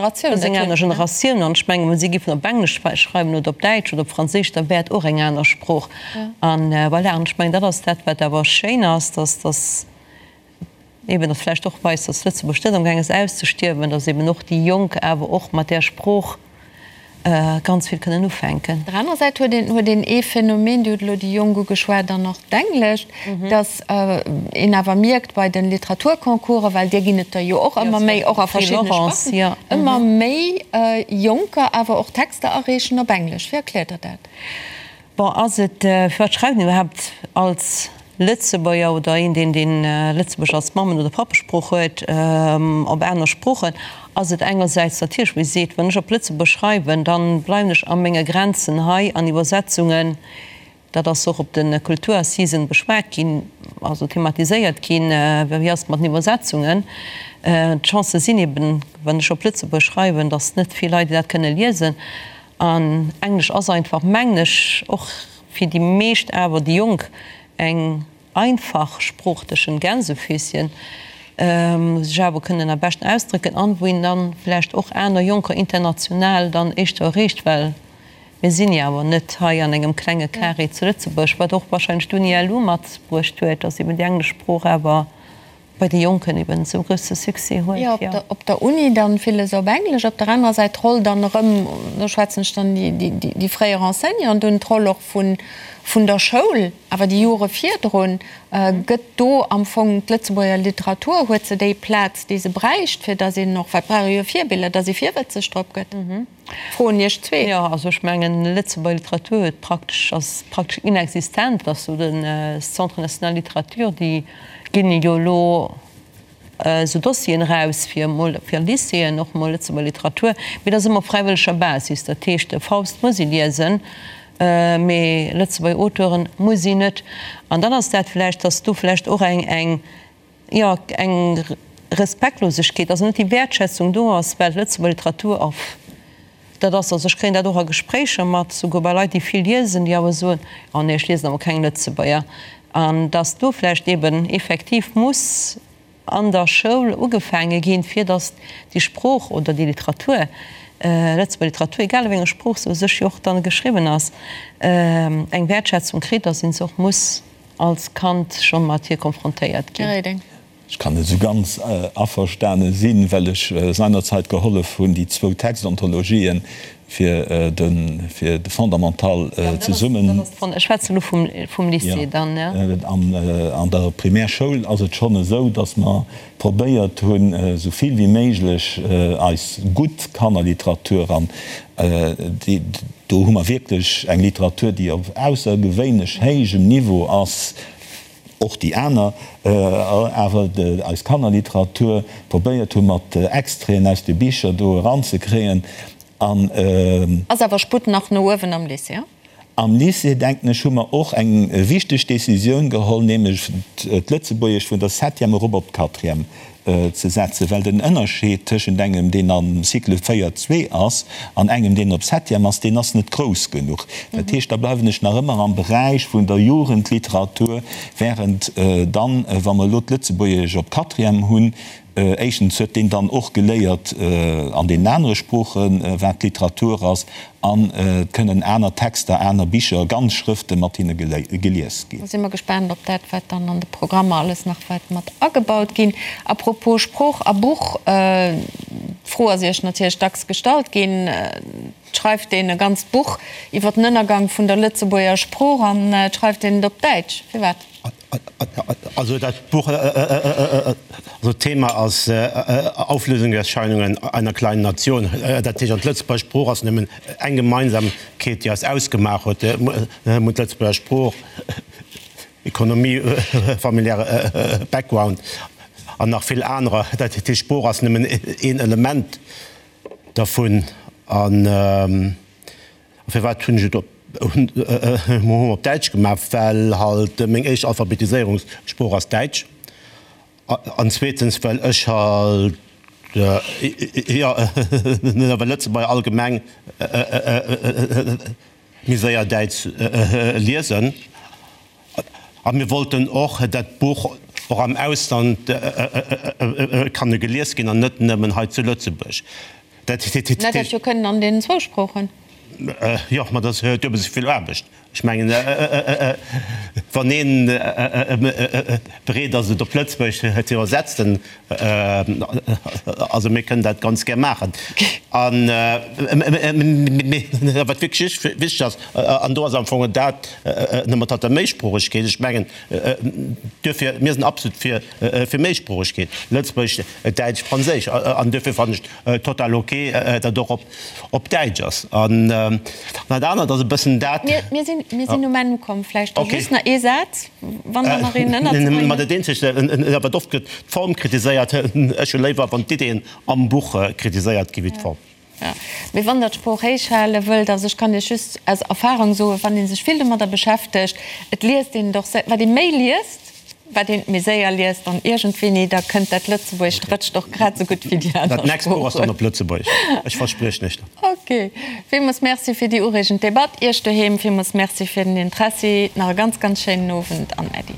aner Generatioun. An ech mengen, wa si géifen op Englesch schreiwen oder op Däitsch oder op Franséisch, da wär et och eng aner Sprooch. An voilà, an ech mengen, dat ass dat, wat awer schéin ass, dass, dass eeben dat vläicht och weist, dass Lëtzebuerg net amgaang ass auszestierwen, dass eeben och déi Jonk awer och mat där Sprooch ganz vill kënnen ufänken. Op der anerer Säit huet een huet een ee Phänomen, Dir hutt elo déi Jonk ugeschwat an och d'Englescht, datt een awer mierkt bei de Literaturconcoursen, well där ginn et der jo och ëmmer méi, och a verschiddene Sparten, ëmmer méi Jonker awer och Texter areechen op Englesch. Wéi erkläert Der dat? Bon, ass et, firwat schreift een iwwerhaapt als Lëtzebuerger oder een, deen deen Lëtzebuergesch als Mammen oder Pappesprooch huet, op aner Sproochen? Ass et engersäits natierlech, wéi seet, wann ech op Lëtzebuerg schreiwen, dann bleiwen ech a menge Grenzen hei an Iwwersetzungen, dat ass och op de Kulturassisen beschwat ginn, also thematiséiert ginn, wéi ass et mat den Iwwersetzungen? D'Chancë sinn eben, wann ech op Lëtzebuerg schreiwen, datt net vill Leit dat kënne liesen. An Englesch ass einfach, mengen ech, och fir déi meescht awer, déi Jonk, eng einfach Sprooch tëschent Gänsefüßchen, wou se sech awer kënnen am beschten ausdrécken an wou een dann vläicht och aner Jonker international dann éischter erreecht, well mir sinn jo awer net hei an engem klenge Carré zu Lëtzebuerg, wat och wahrscheinlech d'Uni-LU matbruecht huet, dass eben déi englesch Sprooch awer bei de Jonken eben esou grousse Succès huet, jo. Jo, op der Uni dann villes op Englesch, op der anerer Säit d'Roll dann erëm, do schwätzen ech dann déi fréier Enseignanten un, d'Roll och vun der Schoul, awer déi Jore virdrun, gëtt do am Fong d'Lëtzebuerger Literatur, huet se déi Plaz, déi se bräicht, fir datt een och, well et brauch ee jo Virbiller, datt ee virwëtzeg drop gëtt? Froen Iech zwee. Jo, also ech mengen, Lëtzebuerger Literatur huet praktesch, ass praktesch inexistent. Et ass esou den Centre national littérature, déi ginn jo elo esou Dossieren eraus fir emol fir Lycéeën och emol Lëtzebuerger Literatur, mee dat ass ëmmer op fräiwëlleger Basis. Dat heescht, de Faust muss ee liesen, mee Lëtzebuerger Auteuren muss een net. An dann ass dat vläicht, datt do vläicht och eng eng jo, eng Respektlosegkeet, also net déi Wäertschätzung do ass, well d'Lëtzebuerger Literatur a. Dat ass, also ech kréien dat och a Gespréicher mat, souguer bei Leit, déi vill liesen, déi awer soen, oh nee, ech liesen awer keng Lëtzebuerger. An dass do vläicht eben effektiv muss an der Schoul ugefaange ginn, fir dass déi Sprooch oder déi Literatur, Lëtzebuerger Literatur, egal a wéi enger Sprooch se u sech jo och dann geschriwwen ass, eng Wäertschätzung kritt, dass een se och muss als Kand scho mat hir konfrontéiert ginn. Här Reding. Ech kann net esou ganz averstane sinn, well ech seinerzeit gehollef hunn, déi zwou Textontologien fir de fir de Fondamental zesummen. Ech schwätzen elo vum Lycée dann, jo. An der Primärschoul ass et schonn esou, datt mer probéiert hunn, esou vill wéi méiglech eis gutt Kannerliteratur, an déi do hu mer wierklech eng Literatur, déi op aussergewéinlech héijem Niveau ass, och déi aner, awer eis Kannerliteratur probéiert hu mat Extraiten aus de Bicher do eranzekréien an. Ass awer Sputt nach no uewen am Lycée? Am Lycée, denken ech, hu mer och eng wichteg Décisioun geholl, nämlech d'Lëtzebuergesch vun der Septième erop op d'Quatrième ze setzen, well den Ënnerscheed tëschent engem, deen am Cycle 4, 2 ass, an engem, deen op Septième ass, deen ass net grouss genuch. Dat heescht, da bleiwen ech nach ëmmer am Beräich vun der Jugendliteratur, während dann, wa mer elo d'Lëtzebuergesch op Quatrième hunn, éischtens huet deen dann och geléiert an deenen anere Sproochen, wat Literatur ass, An et kënnen aner Texter, aner Bicher, ganz Schrëfte mat hinne gelies ginn. Da si mer gespaant op dat, wat dann an de Programmer alles nach wäert mat agebaut ginn. A propos Sprooch a Buch, d'Fro ass Iech natierlech dacks gestallt ginn, Et schreift een e ganzt Buch iwwer den Ënnergang vun der Lëtzebuerger Sprooch an et schreift een et op Däitsch. Firwat? Also dat Buch, also d'Thema ass Auflösungserscheinungen einer kleinen Nation. Dat heescht, an d'Lëtzebuerger Sprooch ass nëmmen eng Gemeinsamkeet, déi eis ausgemaach huet. Mir hunn d'Lëtzebuerger Sprooch, Economie, familiäre Background an nach vill anerer. Dat heescht, d'Sprooch ass nëmmen een Element dervun. An Firwat hunn ech et op op Däitsch gemaach? Well halt meng éischt Alphabetiséierungssprooch ass Däitsch an zweetens well ech halt, jo, well Lëtzebuerger allgemeng méi séier Däitsch liesen. A mir wollten och dat Buch och am Ausland kanne gelies ginn an net nëmmen hei zu Lëtzebuerg. Dat hätt jo kënnen an deenen zwou Sproochen. Jo, ma dat ass duebel esou vill Aarbecht. Ech mengen, wann een bereet ass, et op Lëtzebuergesch ze iwwersetzen, also mir kënnen dat ganz gär maachen. An, mee wat wierklech wichteg ass, an do ass am Fong dat nëmme mat der Méisproochegkeet, ech mengen, duerfir, mir sinn absolut fir Méisproochegkeet, Lëtzebuergesch, Däitsch, Franséisch, an duerfir fannen ech total ok, datt och op Däitsch ass. An dat anert ass e bëssen dat. Mir sinn, mir sinn um Enn ukomm. Vläicht da just nach ee Saz, wann der nach een ënnerzebréngen hutt. Ma dat eenzegt, wat oft gëtt d'Form kritiséiert. Ech hu léiwer, wann d'Iddeen am Buch kritiséiert gi wéi d'Form. Jo, mee wann Der d'Sprooch héich hale wëllt, also ech kann Iech just aus Erfahrung soen, wann ee sech vill domadder beschäftegt, et liest een et och, wat ee méi liest, wat een et méi séier liest an iergendwéini da kënnt dat Lëtzebuergescht, rëtscht och grad esou gutt wéi déi aner Dat nächst Buch ass dann op Lëtzebuergesch, ech verspriechen Iech dat. Ok, villmools Merci fir déi ureegend Debatt. Iech doheem villmools Merci fir den Interessi. Nach e ganz, ganz schéinen Owend an Äddi.